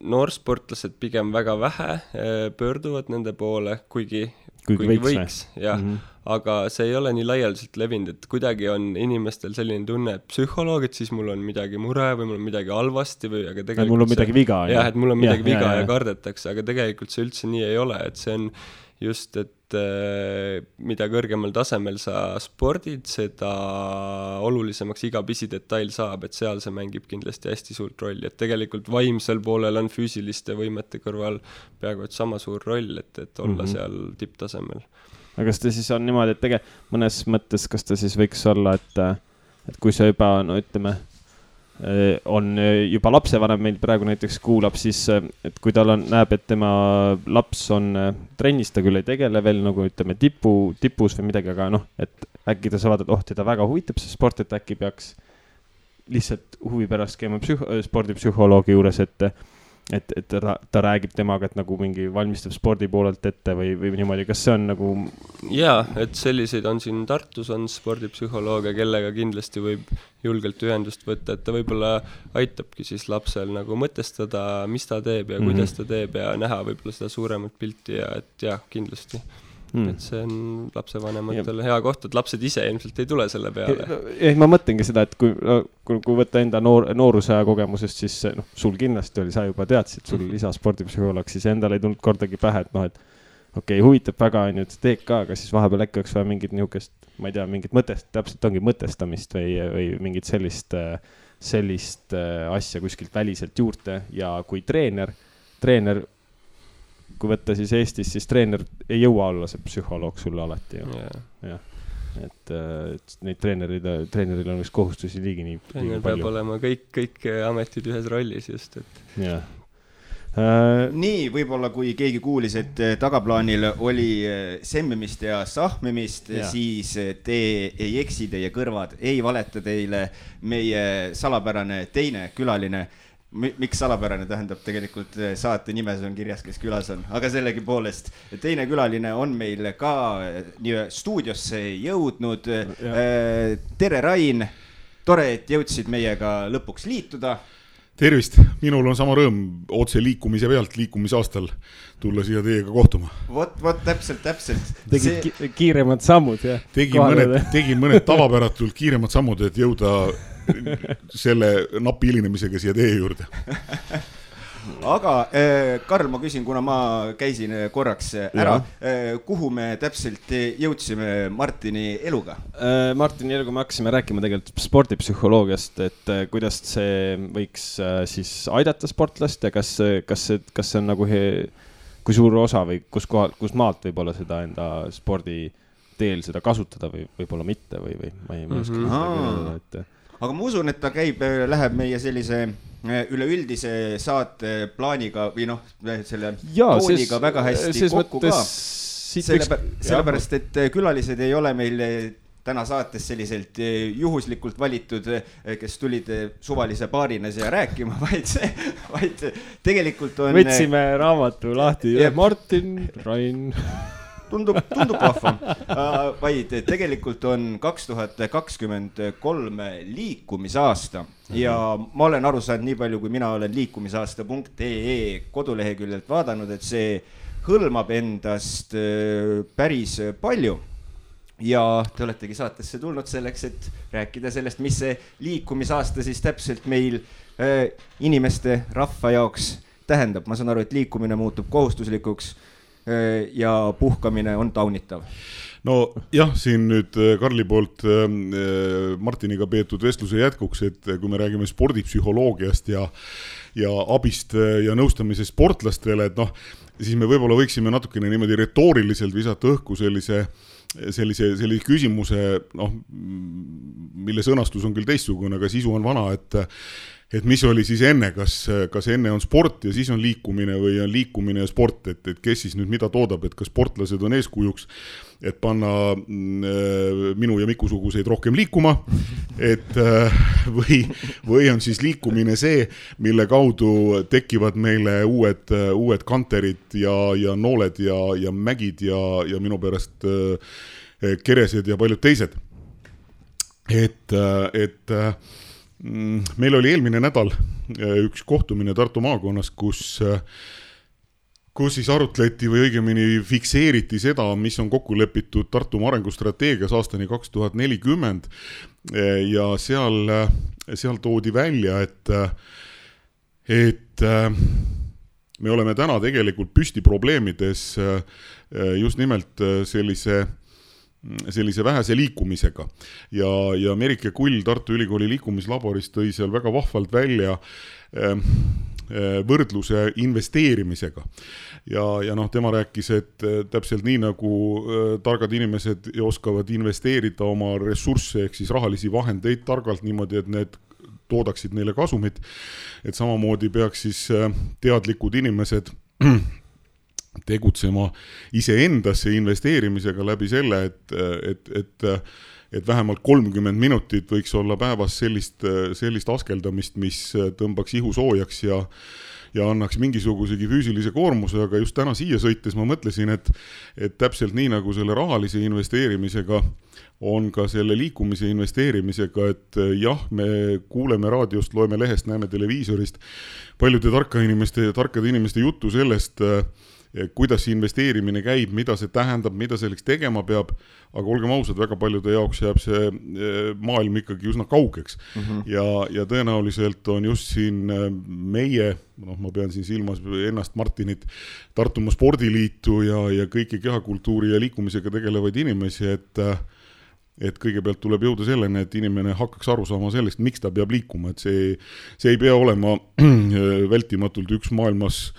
noorsportlased pigem väga vähe pöörduvad nende poole, kuigi võiks aga see ei ole nii laialdaselt levinud, et kuidagi on inimestel selline tunne, et psühholoog, et siis mul on midagi mure või mul on midagi halvasti või aga tegelikult mul on midagi viga. Jah, et mul on midagi viga ja kardetakse, aga tegelikult see üldse nii ei ole, et see on just, et mida kõrgemal tasemel sa spordid, seda olulisemaks iga pisidetail saab, et seal see mängib kindlasti hästi suurt rolli, et tegelikult vaimsel poolel on füüsiliste võimete kõrval peaaegu et sama suur roll, et olla seal tipptasemel. Aga kas ta siis on niimoodi, et mõnes mõttes, kas ta siis võiks olla, et kui sa juba, ütleme, on juba lapsevanem meil praegu näiteks kuulab, siis et kui tal näeb, et tema laps on trennis, ta küll ei tegele veel nagu ütleme tipus või midagi, aga et äkki ta saavad, et teda väga huvitab see sport, et äkki peaks lihtsalt huvi pärast käima spordipsühholoogi juures, et ta räägib temaga, et nagu mingi valmistab spordi poolelt ette või niimoodi, kas see on nagu... Jaa, et selliseid on siin Tartus on spordipsühholoogia, kellega kindlasti võib julgelt ühendust võtta, et ta võib-olla aitabki siis lapsel nagu mõtestada, mis ta teeb ja kuidas ta teeb ja näha võib-olla seda suuremat pilti ja et jah, kindlasti. Et see on lapsevanematel hea koht, et lapsed ise ilmselt ei tule selle peale. Ma mõtlengi seda, et kui võtta enda noorusaja kogemusest, siis sul kindlasti oli, sa juba teadsid, sul isa spordipsühholoog, siis endal ei tulnud kordagi pähe, et okei, huvitab väga, et teed ka, aga siis vahepeal äkki oleks vaja mingit nihukest, ma ei tea, mingit täpselt ongi mõtestamist või mingit sellist asja kuskilt väliselt juurde ja kui treener treener, kui võtta siis Eestis, siis treener ei jõua olla see psühholoog sulle alati. Jah. Et neid treeneril on üks kohustusi liigi nii palju. Peab olema kõik ametid ühes rollis just, et... Jah. Nii, võib-olla kui keegi kuulis, et tagaplaanil oli semmimist ja sahmimist, siis te ei eksi, teie kõrvad ei valeta teile. Meie salapärane teine külaline, miks salapärane, tähendab tegelikult saate nimes on kirjas, kes külas on, aga sellegi poolest teine külaline on meil ka stuudiosse jõudnud. Tere, Rain, tore, et jõudsid meiega lõpuks liituda. Tervist, minul on sama rõõm otse liikumise pealt liikumisaastal tulla siia teiega kohtuma. Vot, täpselt. Tegid kiiremad sammud, jah? Tegin mõned tavapäratult kiiremad sammud, et jõuda selle napi hilinemisega siia teie juurde. Aga Karl, ma küsin, kuna ma käisin korraks ära, kuhu me täpselt jõudsime Martini eluga? Martini eluga me hakkasime rääkima tegelikult spordipsühholoogiast, et kuidas see võiks siis aidata sportlast ja kas see on nagu kui suur osa või kus maalt võib-olla seda enda spordi teel seda kasutada või võib-olla mitte või ma ei oska seda, et... Aga ma usun, et ta läheb meie sellise üleüldise saate plaaniga või selle tooniga väga hästi kokku ka. Sellepärast, et külalised ei ole meil täna saates selliselt juhuslikult valitud, kes tulid suvalise paarina siia rääkima, vaid tegelikult on... Võtsime raamatu lahti. Martin, Rain... Tundub vahva, vaid tegelikult on 2023 liikumisaasta ja ma olen aru saanud nii palju, kui mina olen liikumisaasta.ee koduleheküljelt vaadanud, et see hõlmab endast päris palju. Ja te oletegi saatesse tulnud selleks, et rääkida sellest, mis see liikumisaasta siis täpselt meil inimeste rahva jaoks tähendab. Ma saan aru, et liikumine muutub kohustuslikuks ja puhkamine on taunitav. No jah, siin nüüd Karli poolt Martiniga peetud vestluse jätkuks, et kui me räägime spordipsühholoogiast ja abist ja nõustamisest sportlastele, et siis me võib-olla võiksime natukene niimoodi retooriliselt visata õhku sellise küsimuse, mille sõnastus on küll teistsugune, aga sisu on vana, et mis oli siis enne, kas enne on sport ja siis on liikumine või on liikumine ja sport, et kes siis nüüd mida toodab, et kas sportlased on eeskujuks, et panna minu ja Miku-suguseid rohkem liikuma, et või on siis liikumine see, mille kaudu tekivad meile uued kanterid ja nooled ja mägid ja minu pärast keresed ja paljud teised. Et meil oli eelmine nädal üks kohtumine Tartu maakonnas, kus siis arutleti või õigemini fikseeriti seda, mis on kokku lepitud Tartu arengustrateegias aastani 2040 ja seal toodi välja, et me oleme täna tegelikult püsti probleemides just nimelt sellise vähese liikumisega ja Merike Kull Tartu Ülikooli liikumislaboris tõi seal väga vahvalt välja võrdluse investeerimisega ja tema rääkis, et täpselt nii nagu targad inimesed oskavad investeerida oma ressursse ehk siis rahalisi vahendeid targalt niimoodi, et need toodaksid neile kasumit, et samamoodi peaks siis teadlikud inimesed tegutsema iseendasse investeerimisega läbi selle, et vähemalt 30 minutit võiks olla päevas sellist askeldamist, mis tõmbaks ihu soojaks ja annaks mingisugusegi füüsilise koormuse, aga just täna siia sõites ma mõtlesin, et täpselt nii nagu selle rahalise investeerimisega on ka selle liikumise investeerimisega, et jah, me kuuleme raadiost, loeme lehest, näeme televiisorist paljude tarkade inimeste juttu sellest, kuidas investeerimine käib, mida see tähendab, mida selleks tegema peab, aga olgem ausad, väga paljude jaoks jääb see maailm ikkagi üsna kaugeks. Ja tõenäoliselt on just siin meie, ma pean siin silmas ennast Martinit, Tartumaa Spordiliitu ja kõiki kehakultuuri ja liikumisega tegelevaid inimesi, et kõigepealt tuleb jõuda selleni, et inimene hakkaks aru saama sellest, miks ta peab liikuma, et see ei pea olema vältimatult üks maailmas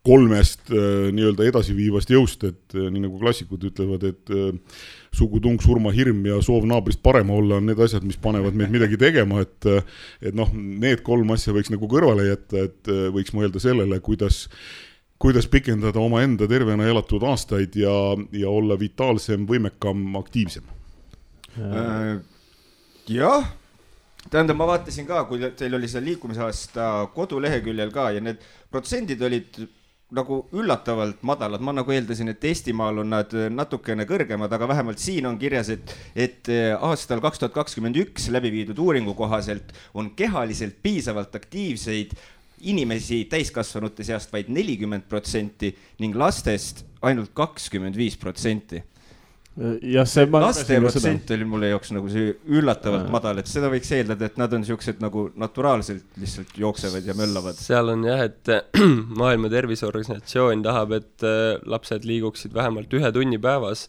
kolmest nii-öelda edasiviivast jõust, et nii nagu klassikud ütlevad, et sugutung, surmahirm ja soov naabrist parema olla on need asjad, mis panevad meid midagi tegema, et noh, need 3 asja võiks nagu kõrvale jätta, et võiks mõelda sellele, kuidas pikendada oma enda tervena elatud aastaid ja olla vitaalsem, võimekam, aktiivsem. Jah, tähendab, ma vaatasin ka, kui teil oli see liikumisaasta koduleheküljel ka ja need protsendid olid nagu üllatavalt madalad. Ma nagu eeldasin, et Eestimaal on nad natukene kõrgemad, aga vähemalt siin on kirjas, et aastal 2021 läbi viidud uuringu kohaselt on kehaliselt piisavalt aktiivseid inimesi täiskasvanute seast vaid 40% ning lastest ainult 25%. Ja see laste protsent oli mulle jaoks nagu see üllatavalt madal, et seda võiks eeldada, et nad on siuksed nagu naturaalselt lihtsalt jooksevad ja möllavad. Seal on jah, et Maailma Terviseorganisatsioon tahab, et lapsed liiguksid vähemalt 1 tunni päevas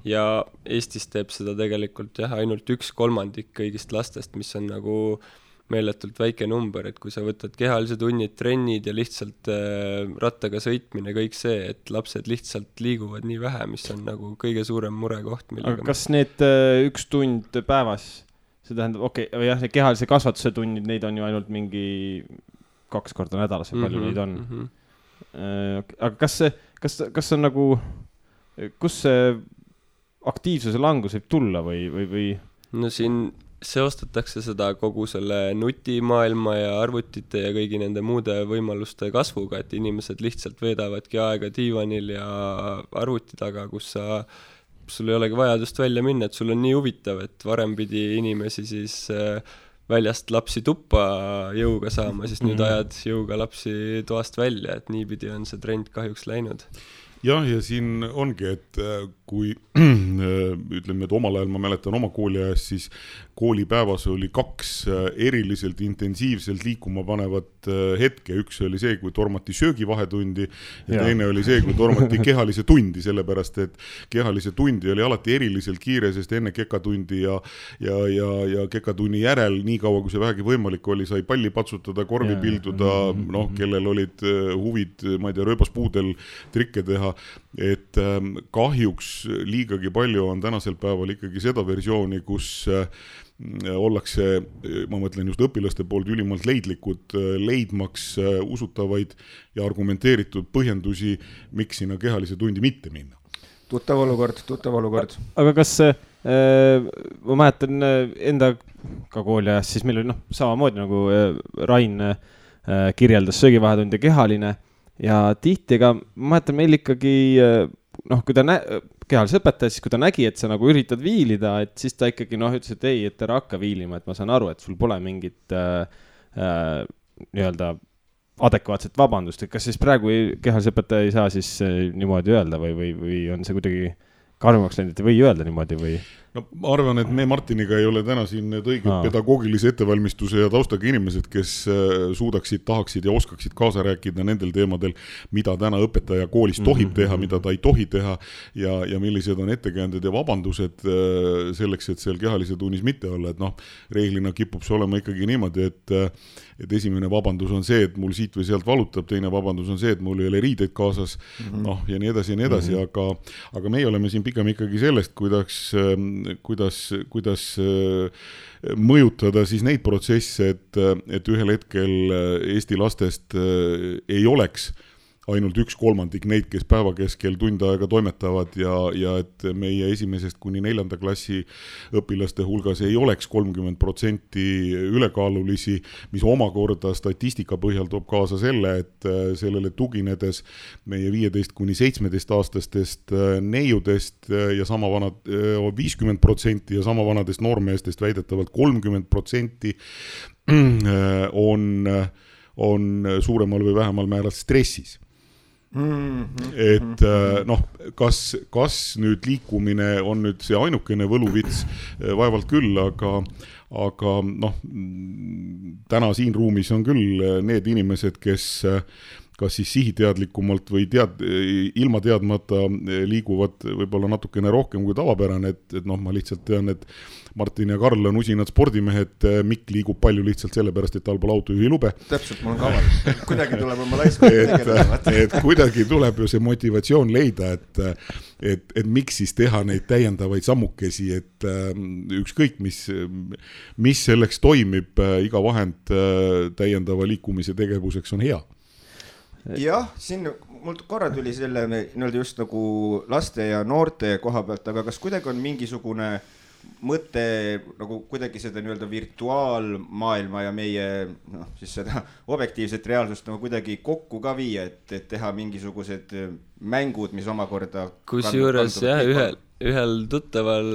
ja Eestis teeb seda tegelikult jah, ainult 1/3 kõigist lastest, mis on nagu meeletult väike number, et kui sa võtad kehalise tunnid, trennid ja lihtsalt rattaga sõitmine, kõik see, et lapsed lihtsalt liiguvad nii vähe, mis on nagu kõige suurem murekoht. Aga kas need 1 tund päevas, see tähendab, jah, see kehalise kasvatuse tunnid, neid on ju ainult mingi 2 korda nädalas, palju neid on. Aga kas on nagu, kus see aktiivsuse langus võib tulla või? No siin seostatakse seda kogu selle nutimaailma ja arvutite ja kõigi nende muude võimaluste kasvuga, et inimesed lihtsalt veedavadki aega diivanil ja arvuti taga, kus sul ei olegi vajadust välja minna, et sul on nii huvitav, et varem pidi inimesi siis väljast lapsi tuppa jõuga saama, siis nüüd ajad jõuga lapsi toast välja, et niipidi on see trend kahjuks läinud. Jah, ja siin ongi, et kui ütleme, et omal ajal ma mäletan oma kooli ajast, siis koolipäevas oli 2 eriliselt intensiivselt liikuma panevat hetke. Üks oli see, kui tormati söögivahetundi ja teine oli see, kui tormati kehalise tundi, sellepärast, et kehalise tundi oli alati eriliselt kiire, sest enne kekatundi ja kekatunni järel, nii kaua kui see vähegi võimalik oli, sai palli patsutada, korvi pilduda, noh, kellel olid huvid, ma ei tea, rööbaspuudel trikke teha, et kahjuks liigagi palju on tänasel päeval ikkagi seda versiooni, kus ollakse, ma mõtlen just õpilaste poolt ülimalt leidlikud, leidmaks usutavaid ja argumenteeritud põhjendusi, miks sinna kehalise tundi mitte minna. Tuttav olukord. Aga kas ma mäletan enda ka kooli ajast, siis meil oli samamoodi nagu Rain kirjeldas söögivahetund ja kehaline ja tihti ka, ma mäletan meil ikkagi kui ta kehalise õpetaja, siis kui ta nägi, et sa nagu üritad viilida, et siis ta ikkagi ütles, et ei, et ära hakka viilima, et ma saan aru, et sul pole mingit nii-öelda adekvaatset vabandust, et kas siis praegu kehalise õpetaja ei saa siis niimoodi öelda või on see kuidagi karmaks läinud, et ei või öelda niimoodi või? No, ma arvan, et me Martiniga ei ole täna siin need õiged pedagoogilise ettevalmistuse ja taustaga inimesed, kes suudaksid, tahaksid ja oskaksid kaasa rääkida nendel teemadel, mida täna õpetaja koolis tohib teha, mida ta ei tohi teha ja millised on ettekäänded ja vabandused selleks, et seal kehalise tunnis mitte olla. Et reeglina kipub see olema ikkagi niimoodi, et esimene vabandus on see, et mul siit või sealt valutab, teine vabandus on see, et mul ei ole riideid kaasas, ja nii edasi, aga meie oleme siin pigem ikkagi sellest, kuidas mõjutada siis neid protsesse, et ühel hetkel Eesti lastest ei oleks ainult 1/3 neid, kes päeva keskel tund aega toimetavad ja et meie 1. kuni 4. klassi õpilaste hulgas ei oleks 30% ülekaalulisi, mis omakorda statistika põhjal toob kaasa selle, et sellele tuginedes meie 15 kuni 17 aastastest neiudest ja sama vanad 50% ja sama vanadest noormeestest väidetavalt 30% on suuremal või vähemal määral stressis. Et kas nüüd liikumine on nüüd see ainukene võluvits, vaevalt küll, aga täna siin ruumis on küll need inimesed, kes kas siis sihiteadlikumalt või ilma teadmata liiguvad võib-olla natukene rohkem kui tavapärane, et noh, ma lihtsalt tean, et Martin ja Karl on usinad spordimehed, Mikk liigub palju lihtsalt sellepärast, et tal pole autojuhilube. Täpselt, mul on kaval. Kuidagi tuleb oma laiskond tegelema. Et kuidagi tuleb ju see motivatsioon leida, et miks siis teha neid täiendavaid sammukesi, et ükskõik, mis selleks toimib, iga vahend täiendava liikumise tegevuseks on hea. Jah, siin mul korra tuli selle just nagu laste ja noorte koha pealt, aga kas kuidagi on mingisugune mõte nagu kuidagi seda virtuaalmaailma ja meie siis seda objektiivset reaalsust nagu kuidagi kokku ka viia, et teha mingisugused mängud, mis omakorda kusjuures ühel tuttaval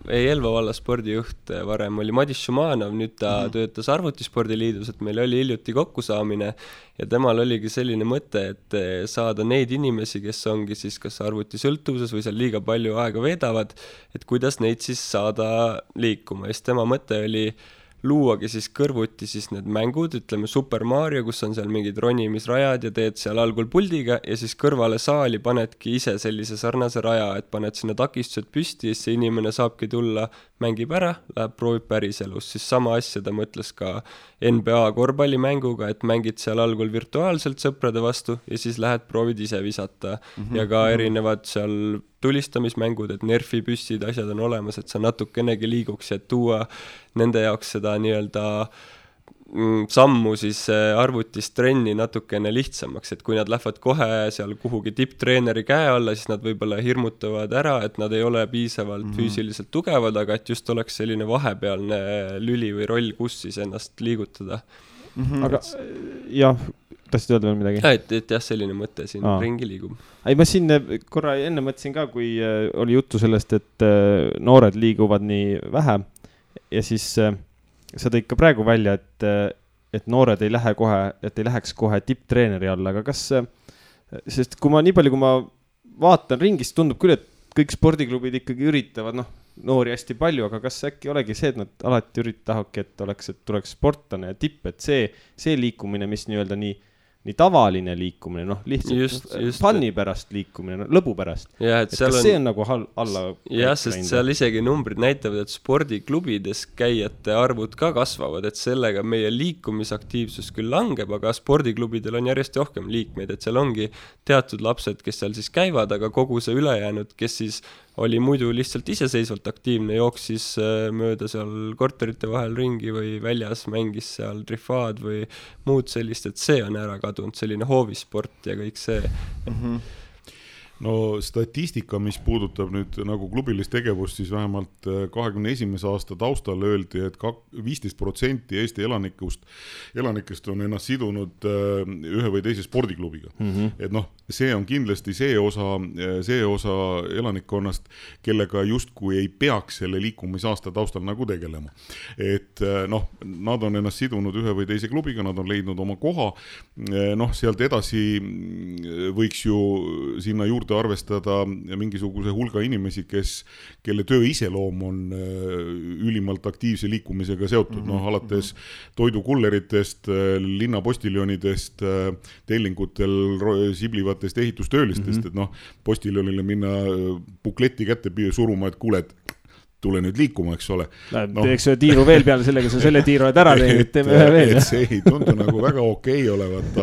Elva valla spordijuht varem oli Madis Šumanov, nüüd ta töötas Arvutispordiliidus, et meil oli hiljuti kokkusaamine ja temal oligi selline mõte, et saada neid inimesi, kes ongi siis kas arvutisõltuvuses või seal liiga palju aega veedavad, et kuidas neid siis saada liikuma. Ja siis tema mõte oli luuagi siis kõrvuti siis need mängud, ütleme Super Mario, kus on seal mingid ronimisrajad ja teed seal algul puldiga ja siis kõrvale saali panedki ise sellise sarnase raja, et paned sinna takistused püsti ja see inimene saabki tulla, mängib ära, läheb proovib päriselus. Siis sama asja ta mõtles ka NBA korvpallimänguga, et mängid seal algul virtuaalselt sõprade vastu ja siis lähed proovid ise visata ja ka erinevad seal tulistamismängud, et nerfi püssid, asjad on olemas, et sa natukenegi liiguks ja tuua nende jaoks seda nii-öelda sammu siis arvutist trenni natukene lihtsamaks, et kui nad lähevad kohe seal kuhugi tipptreeneri käe alla, siis nad võib-olla hirmutavad ära, et nad ei ole piisavalt füüsiliselt tugevad, aga et just oleks selline vahepealne lüli või roll, kus siis ennast liigutada. Aga jah, tahtsid öelda veel midagi? Et jah, selline mõte siin ringi liigub. Ei, ma siin korra enne mõtlesin ka, kui oli juttu sellest, et noored liiguvad nii vähe ja siis sa tõid ka praegu välja, et noored ei lähe kohe, et ei läheks kohe tipptreeneri alla, aga kas, sest kui ma nii palju, kui ma vaatan ringist, tundub küll, et kõik spordiklubid ikkagi üritavad, noori hästi palju, aga kas äkki olegi see, et nad alati tahavadki, et tuleks sportlane ja tipp, et see liikumine, mis nii-öelda nii tavaline liikumine, lihtsalt funni pärast liikumine, lõbu pärast. Ja, et kas see on nagu alla? Jah, sest seal isegi numbrid näitavad, et spordiklubides käijate arvud ka kasvavad, et sellega meie liikumisaktiivsus küll langeb, aga spordiklubidel on järjest rohkem liikmeid, et seal ongi teatud lapsed, kes seal siis käivad, aga kogu see ülejäänud, kes siis oli muidu lihtsalt iseseisvalt aktiivne, jooksis mööda seal korterite vahel ringi või väljas mängis seal trifaad või muud sellist, et see on ära kadunud, selline hoovisport ja kõik see. No statistika, mis puudutab nüüd nagu klubilist tegevust, siis vähemalt 21. aasta taustal öeldi, et 15% Eesti elanikest on ennast sidunud ühe või teise spordiklubiga. Et see on kindlasti see osa elanikkonnast, kellega justkui ei peaks selle liikumisaasta taustal nagu tegelema. Et nad on ennast sidunud ühe või teise klubiga, nad on leidnud oma koha. Sealt edasi võiks ju sinna juurde arvestada mingisuguse hulga inimesi, kelle töö iseloom on ülimalt aktiivse liikumisega seotud, alates toidukulleritest, linnapostiljonidest, tellingutel siblivatest ehitustöölistest, et postiljonile minna bukleti kätte suruma, et kuule, tule nüüd liikuma, eks ole. Teeks ühe tiiru veel peale sellega, sa selle tiiru oled ära teinud, teeme ühe veel. See ei tundu nagu väga okei olevat,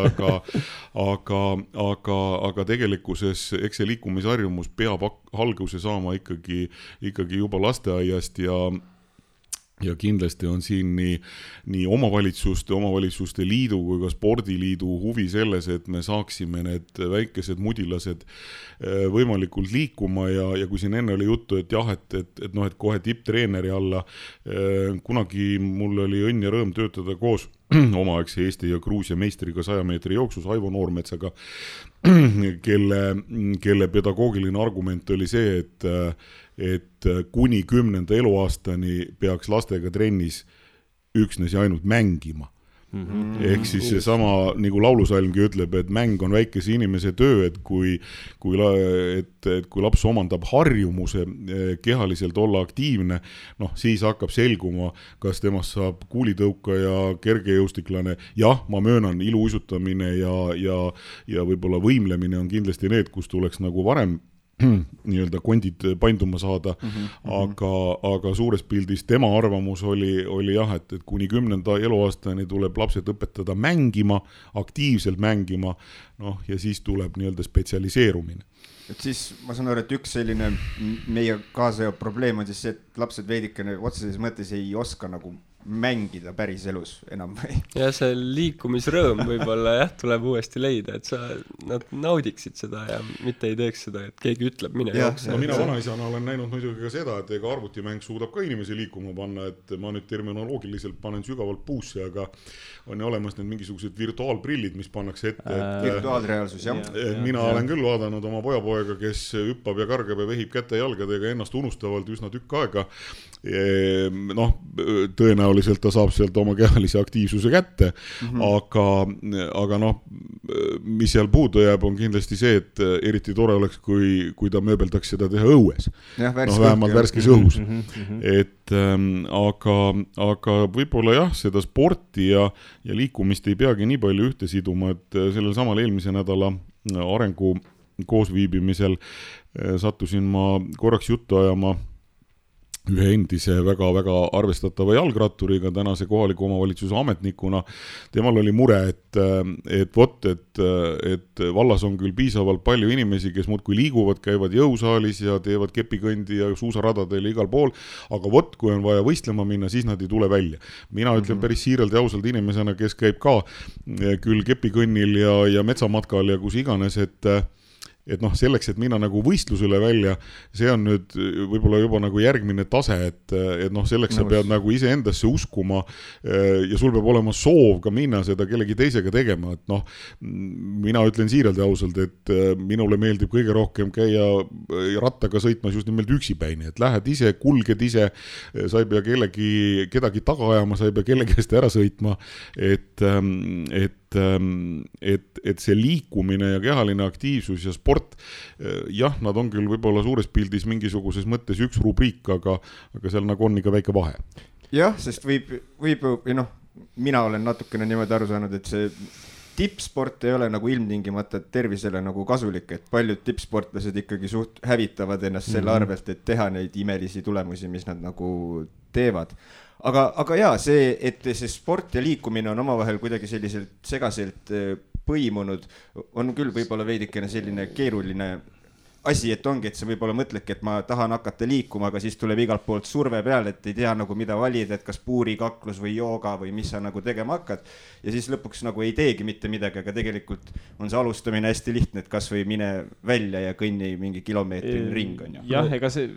aga tegelikkuses eks see liikumisharjumus peab alguse saama ikkagi juba lasteaiast ja kindlasti on siin nii omavalitsuste liidu kui ka spordiliidu huvi selles, et me saaksime need väikesed mudilased võimalikult liikuma ja kui siin enne oli juttu, et jah, et kohe tipptreeneri alla, kunagi mul oli õnn ja rõõm töötada koos omaaegse Eesti ja Gruusia meistriga 100 meetri jooksus Aivo Noormetsaga, kelle pedagoogiline argument oli see, et kuni 10. eluaastani peaks lastega trennis üksnes ja ainult mängima. ehk siis seesama, nagu laulusalmgi ütleb, et mäng on väikese inimese töö, et kui laps omandab harjumuse kehaliselt olla aktiivne, noh, siis hakkab selguma, kas temast saab kuulitõukaja, kergejõustiklane. Jah, ma möönan, iluuisutamine ja võib-olla võimlemine on kindlasti need, kus tuleks nagu varem nii-öelda kondid painduma saada, aga suures pildis tema arvamus oli jah, et kuni 10. eluaastani tuleb lapsed õpetada mängima, aktiivselt mängima, noh, ja siis tuleb nii-öelda spetsialiseerumine. Et siis ma saan aru, et üks selline meie kaasa probleem on siis see, et lapsed veidikene otseses mõttes ei oska nagu mängida päris elus enam või? Ja see liikumisrõõm võib-olla jah, tuleb uuesti leida, et nad naudiksid seda ja mitte ei teeks seda, et keegi ütleb, mine jookse. No mina vanaisana olen näinud muidugi ka seda, et ega arvutimäng suudab ka inimesi liikuma panna, et ma nüüd terminoloogiliselt panen sügavalt puusse, aga on olemas need mingisugused virtuaalprillid, mis pannakse ette. Virtuaalreaalsus, jah. Mina olen küll vaadanud oma pojapoega, kes hüppab ja kargab ja vehib käte jalgadega ennast unustavalt üsna tükk aega. Noh, tõenäoliselt ta saab sealt oma kehalise aktiivsuse kätte, aga noh, mis seal puudu jääb, on kindlasti see, et eriti tore oleks, kui ta mööbeldaks seda teha õues. Vähemalt värskes õhus. Et aga võib-olla jah, seda sporti ja liikumist ei peagi nii palju ühte siduma, et sellel samal eelmise nädala arengu koosviibimisel sattusin ma korraks juttu ajama ühe endise väga-väga arvestatava jalgratturiga, tänase kohaliku omavalitsuse ametnikuna. Temal oli mure, et vallas on küll piisavalt palju inimesi, kes muudkui liiguvad, käivad jõusaalis ja teevad kepikõndi ja suusaradadel igal pool, aga kui on vaja võistlema minna, siis nad ei tule välja. Mina ütlen päris siiralt ja ausalt inimesena, kes käib ka küll kepikõnnil ja metsamatkal ja kus iganes, et noh, selleks, et minna nagu võistlusele välja, see on nüüd võib-olla juba nagu järgmine tase, et noh, selleks sa pead nagu ise endasse uskuma ja sul peab olema soov ka minna seda kellegi teisega tegema, et noh, mina ütlen siiralt ja ausalt, et minule meeldib kõige rohkem käia rattaga sõitmas just nimelt üksipäini, et lähed ise, kulged ise, sa ei pea kedagi taga ajama, sa ei pea kellegi eest ära sõitma, et see liikumine ja kehaline aktiivsus ja sport, jah, nad on küll võib-olla suures pildis mingisuguses mõttes üks rubriik, aga seal nagu on ikka väike vahe. Jah, sest võib, mina olen natukene niimoodi aru saanud, et see tippsport ei ole nagu ilmtingimata tervisele nagu kasulik, et paljud tippsportlased ikkagi suht hävitavad ennast selle arvelt, et teha neid imelisi tulemusi, mis nad nagu teevad. Aga jaa, see, et see sport ja liikumine on omavahel kuidagi selliselt segaselt põimunud, on küll võib-olla veidikene selline keeruline asi, et ongi, et sa võib-olla mõtledki, et ma tahan hakata liikuma, aga siis tuleb igalt poolt surve peale, et ei tea nagu mida valida, et kas puurikaklus või jooga või mis sa nagu tegema hakkad. Ja siis lõpuks nagu ei teegi mitte midagi, aga tegelikult on see alustamine hästi lihtne, et kas või mine välja ja kõnni mingi kilomeetrini ring on ju. Jah, ega see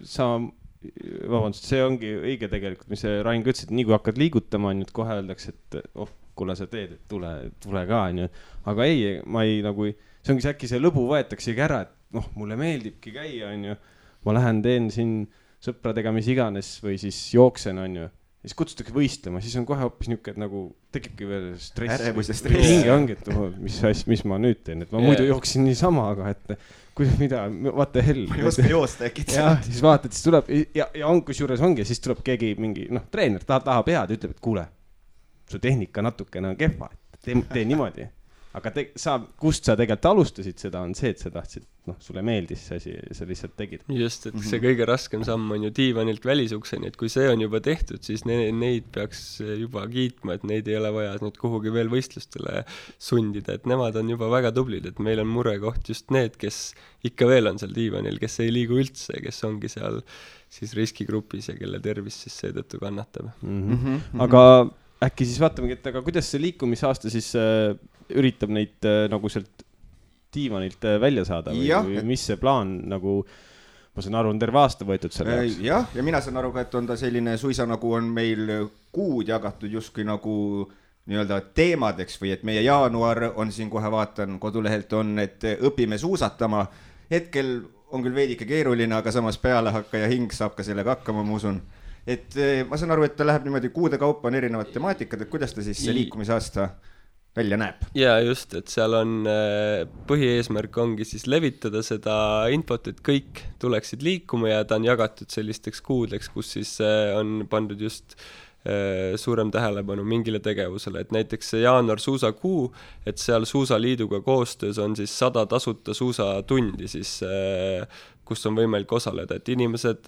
ongi õige tegelikult, mis see Rain ütles, et nii kui hakkad liigutama, nüüd kohe öeldakse, et kuule sa teed, et tule ka, aga ei, ma ei nagu, see ongi äkki see lõbu võetaksegi ära, et mulle meeldibki käia, ma lähen teen siin sõpradega mis iganes või siis jooksen, siis kutsutakse võistlema, siis on kohe hoopis niisugune, et nagu tekibki veel stress. Ärevus ja stress. Hinge ongi, et mis ma nüüd teen, et ma muidu jooksin niisama, aga et mida, vaata hell. Ma ei oska joosta äkki. Ja siis vaatad, siis tuleb, ja on kusjuures ongi, siis tuleb keegi mingi, treener tahab head, ütleb, et kuule, su tehnika natukene on kehva, et tee niimoodi. Aga kust sa tegelikult alustasid seda, on see, et sa tahtsid, sulle meeldis see asi ja sa lihtsalt tegid. Just, et see kõige raskem samm on ju diivanilt välisukseni, et kui see on juba tehtud, siis neid peaks juba kiitma, et neid ei ole vaja nüüd kuhugi veel võistlustele sundida, et nemad on juba väga tublid, et meil on murekoht just need, kes ikka veel on seal diivanil, kes ei liigu üldse, kes ongi seal siis riskigrupis ja kelle tervis siis seetõttu kannatab. Aga äkki siis vaatamegi, et aga kuidas see liikumisaasta siis üritab neid nagu sealt diivanilt välja saada või mis see plaan nagu, ma saan aru, on terve aasta võetud selle jaoks? Jah, ja mina saan aru ka, et on ta selline suisa nagu on meil kuud jagatud justkui nagu nii-öelda teemadeks või et meie jaanuar on siin kohe vaatan, kodulehelt on, et õpime suusatama. Hetkel on küll veidike keeruline, aga samas pealehakkaja hing saab ka sellega hakkama, ma usun. et ma saan aru, et ta läheb niimoodi kuude kaupa on erinevad temaatikad, et kuidas ta siis see liikumisaasta välja näeb? Jaa, just, et seal on põhieesmärk ongi siis levitada seda infot, et kõik tuleksid liikuma ja ta on jagatud sellisteks kuudeks, kus siis on pandud just suurem tähelepanu mingile tegevusele, et näiteks see jaanuar suusakuu, et seal Suusaliiduga koostöös on siis 100 tasuta suusatundi siis, kus on võimalik osaleda, et inimesed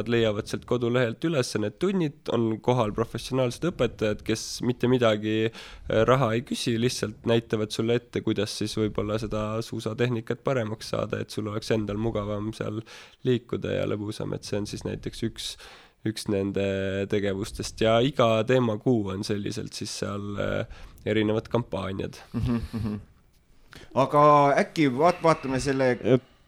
leiavad sealt kodulehelt üles need tunnid, on kohal professionaalsed õpetajad, kes mitte midagi raha ei küsi, lihtsalt näitavad sulle ette, kuidas siis võib-olla seda suusatehnikat paremaks saada, et sul oleks endal mugavam seal liikuda ja lõbusam, et see on siis näiteks üks nende tegevustest ja iga teemakuu on selliselt siis seal erinevad kampaaniad. Aga äkki vaatame selle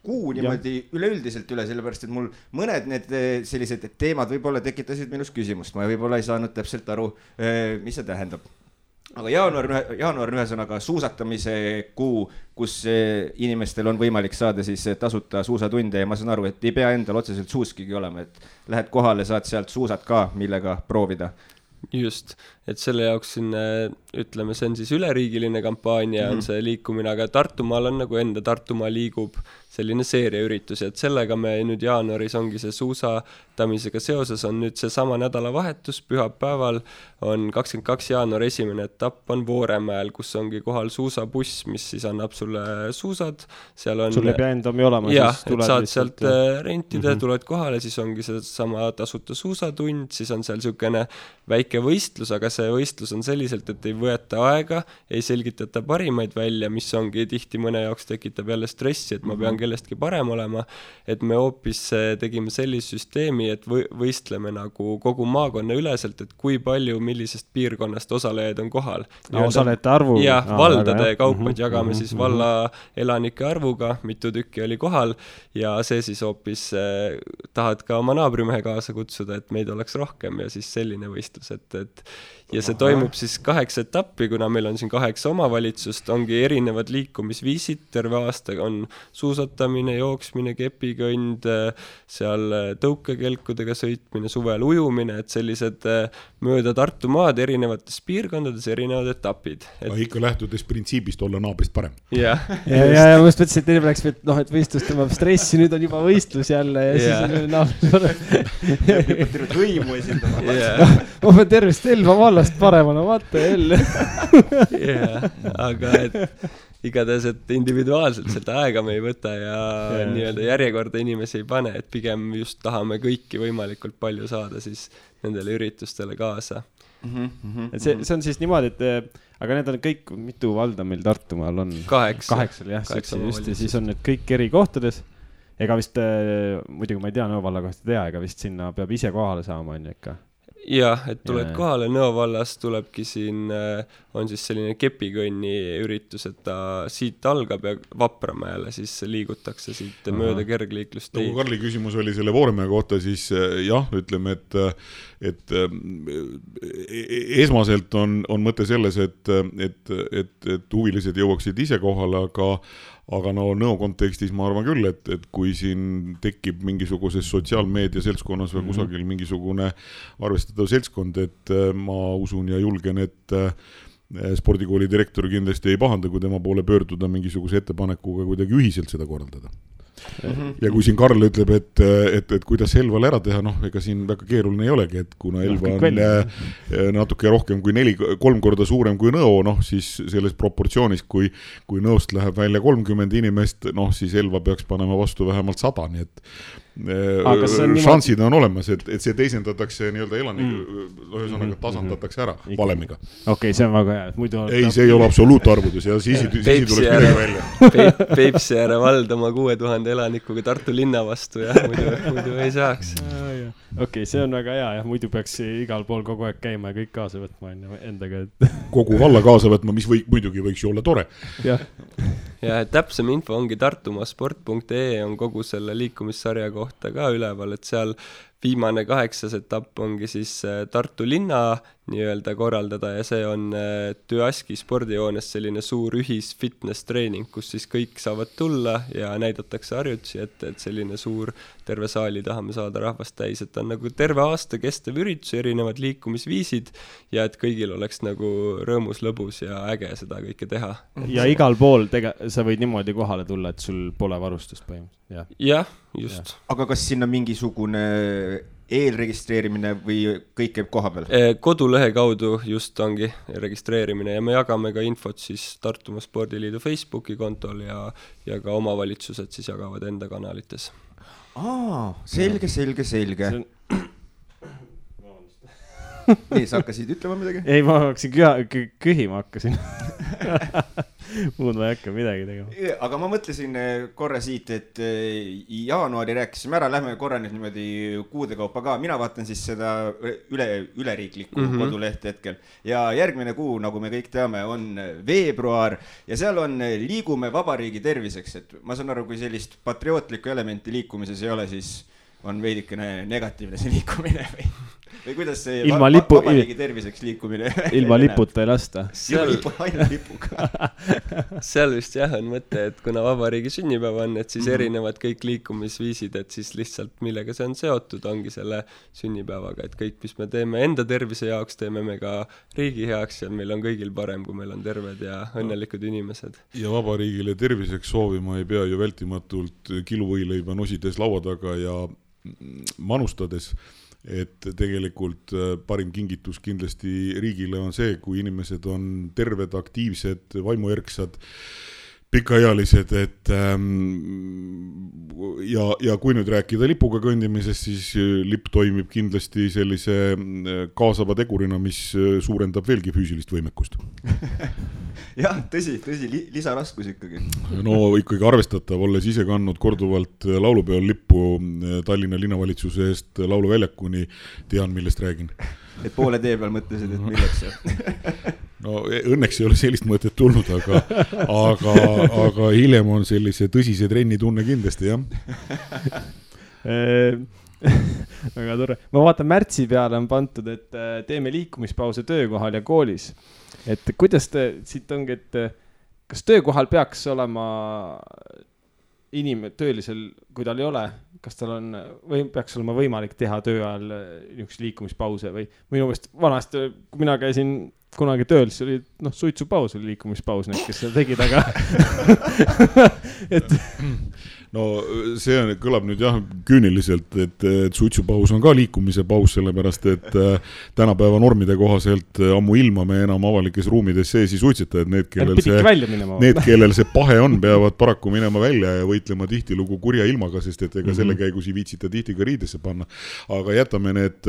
kuu niimoodi üleüldiselt üle, sellepärast, et mul mõned need sellised teemad võib-olla tekitasid minus küsimust, ma võib-olla ei saanud täpselt aru, mis see tähendab. Aga jaanuar on ühesõnaga suusatamise kuu, kus inimestel on võimalik saada siis tasuta suusatunde ja ma saan aru, et ei pea endal otseselt suuskigi olema, et lähed kohale, saad sealt suusad ka, millega proovida. Just, et selle jaoks siin, ütleme, see on siis üleriigiline kampaania, on see liikumine, aga Tartumaal on nagu enda Tartumaa liigub selline seeriaüritus, et sellega me nüüd jaanuaris ongi see suusatamisega seoses on nüüd see sama nädalavahetus, pühapäeval on 22. jaanuar esimene etapp on Vooremäel, kus ongi kohal suusabuss, mis siis annab sulle suusad, seal on... Sul ei pea endami olema, jah, et saad sealt rentida, tuled kohale, siis ongi see sama tasuta suusatund, siis on seal niisugune väike võistlus, aga see võistlus on selliselt, et ei võeta aega, ei selgitata parimaid välja, mis ongi tihti mõne jaoks tekitab jälle stressi, et ma pean kellestki parem olema, et me hoopis tegime sellise süsteemi, et võistleme nagu kogu maakonna üleselt, et kui palju millisest piirkonnast osalejaid on kohal. Osalejate arvu? Jah, valdade kaupad jagame siis valla elanike arvuga, mitu tükki oli kohal ja see siis hoopis tahad ka oma naabrimehe kaasa kutsuda, et meid oleks rohkem ja siis selline võistlus, et ja see toimub siis 8 etappi, kuna meil on siin 8 omavalitsust, ongi erinevad liikumisviisid, terve aasta on suusatamine, jooksmine, kepikõnd, seal tõukekelkudega sõitmine, suvel ujumine, et sellised mööda Tartumaad erinevates piirkondades erinevad etapid. Ikka lähtudes printsiibist olla naabrist parem. Ja ma just mõtlesin, et teine läks, et võistlus tõmbab stressi, nüüd on juba võistlus jälle ja siis on naabrist parem. Tervet hõimu esindama. Ma pean tervist Elva vallast paremana, vaata jälle. Aga igatahes, et individuaalselt seda aega me ei võta ja nii-öelda järjekorda inimesi ei pane, et pigem just tahame kõiki võimalikult palju saada siis nendele üritustele kaasa. Et see on siis niimoodi, et aga need on kõik, mitu valda meil Tartumaal on? 8, jah, just ja siis on need kõik eri kohtades. Ega vist, muidugi ma ei tea, Nõo valla kohta tea, ega vist sinna peab ise kohale saama, on ikka? Jah, et tuled kohale, Nõo vallas tulebki siin, on siis selline kepikõnni üritus, et ta siit algab ja Vapramäele siis liigutakse siit mööda kergliiklust. Kui Karli küsimus oli selle Vooremäe kohta, siis jah, ütleme, et esmaselt on mõte selles, et huvilised jõuaksid ise kohale, aga no Nõo kontekstis ma arvan küll, et kui siin tekib mingisuguses sotsiaalmeedia seltskonnas või kusagil mingisugune arvestatav seltskond, et ma usun ja julgen, et spordikooli direktor kindlasti ei pahanda, kui tema poole pöörduda mingisuguse ettepanekuga kuidagi ühiselt seda korraldada. Ja kui siin Karl ütleb, et kuidas Elval ära teha, ega siin väga keeruline ei olegi, et kuna Elva on natuke rohkem kui 3 korda suurem kui Nõo, siis selles proportsioonis, kui Nõost läheb välja 30 inimest, siis Elva peaks panema vastu vähemalt 100, nii et šansid on olemas, et see teisendatakse nii-öelda ühesõnaga tasandatakse ära valemiga. Okei, see on väga hea. Ei, see ei ole absoluutarvudes ja siis tuleks midagi välja. Peipsi ääre vald oma 6000 elanikuga Tartu linna vastu ja muidu ei saaks. Okei, see on väga hea ja muidu peaks igal pool kogu aeg käima ja kõik kaasa võtma endaga. Kogu valla kaasa võtma, mis muidugi võiks ju olla tore. Ja täpsem info ongi tartumasport.ee on kogu selle liikumissarja kohta ka üleval, et seal viimane 8. etapp ongi siis Tartu linna nii-öelda korraldada ja see on Tüaski spordijoones selline suur ühis-fitness treening, kus siis kõik saavad tulla ja näidatakse harjutusi, et selline suur terve saali tahame saada rahvast täis, et on nagu terve aasta kestev üritus, erinevad liikumisviisid ja et kõigil oleks nagu rõõmus, lõbus ja äge seda kõike teha. Ja igal pool sa võid niimoodi kohale tulla, et sul pole varustust põhimõtteliselt. Jah, just. Aga kas sinna mingisugune eelregistreerimine või kõik käib koha peal? Kodulehe kaudu just ongi registreerimine ja me jagame ka infot siis Tartumaa Spordiliidu Facebooki kontol ja ka omavalitsused siis jagavad enda kanalites. Selge. Nii, sa hakkasid ütlema midagi? Ei, ma hakkasin kühima hakkasin. Muud ma ei hakka midagi tegema. Aga ma mõtlesin korra siit, et jaanuari rääkisime ära, lähme korra nüüd niimoodi kuude kaupa ka. Mina vaatan siis seda üleriiklikku kodulehte hetkel. Ja järgmine kuu, nagu me kõik teame, on veebruar ja seal on liigume vabariigi terviseks. Et ma saan aru, kui sellist patriootlikku elementi liikumises ei ole, siis on veidikene negatiivne see liikumine või kuidas see vabariigi terviseks liikumine? Ilma liputa ei lasta. Ainult lipuga. Seal vist jah on mõte, et kuna vabariigi sünnipäev on, et siis erinevad kõik liikumisviisid, et siis lihtsalt millega see on seotud, ongi selle sünnipäevaga, et kõik, mis me teeme enda tervise jaoks, teeme me ka riigi heaks ja meil on kõigil parem, kui meil on terved ja õnnelikud inimesed. Ja vabariigile terviseks soovima ei pea ju vältimatult kiluvõileiba nosides laua taga ja manustades, et tegelikult parim kingitus kindlasti riigile on see, kui inimesed on terved, aktiivsed, vaimuerksad, pikaealised, et ja kui nüüd rääkida lipuga kõndimisest, siis lipp toimib kindlasti sellise kaasava tegurina, mis suurendab veelgi füüsilist võimekust. Jah, tõsi, lisaraskus ikkagi. No ikkagi arvestatav, olles ise kandnud korduvalt laulupeol lippu Tallinna linnavalitsuse eest lauluväljakuni, tean, millest räägin. Et poole tee peal mõtlesid, et milleks see? No õnneks ei ole sellist mõtet tulnud, aga hiljem on sellise tõsise trenni tunne kindlasti, jah. Väga tore. Ma vaatan märtsi peale on pantud, et teeme liikumispause töökohal ja koolis. Et kuidas siit ongi, et kas töökohal peaks olema töölisel, kui tal ei ole, kas tal on, või peaks olema võimalik teha töö ajal niisuguse liikumispause või minu meelest vanasti, kui mina käisin kunagi tööl, siis oli suitsupaus oli liikumispaus need, kes seda tegid, aga et no see kõlab nüüd jah küüniliselt, et suitsupaus on ka liikumise paus, sellepärast et tänapäeva normide kohaselt ammu ilma me enam avalikes ruumides sees ei suitseta, et need, kellel see pahe on, peavad paraku minema välja ja võitlema tihtilugu kurja ilmaga, sest et ega selle käigus ei viitsita tihti ka riidesse panna. Aga jätame need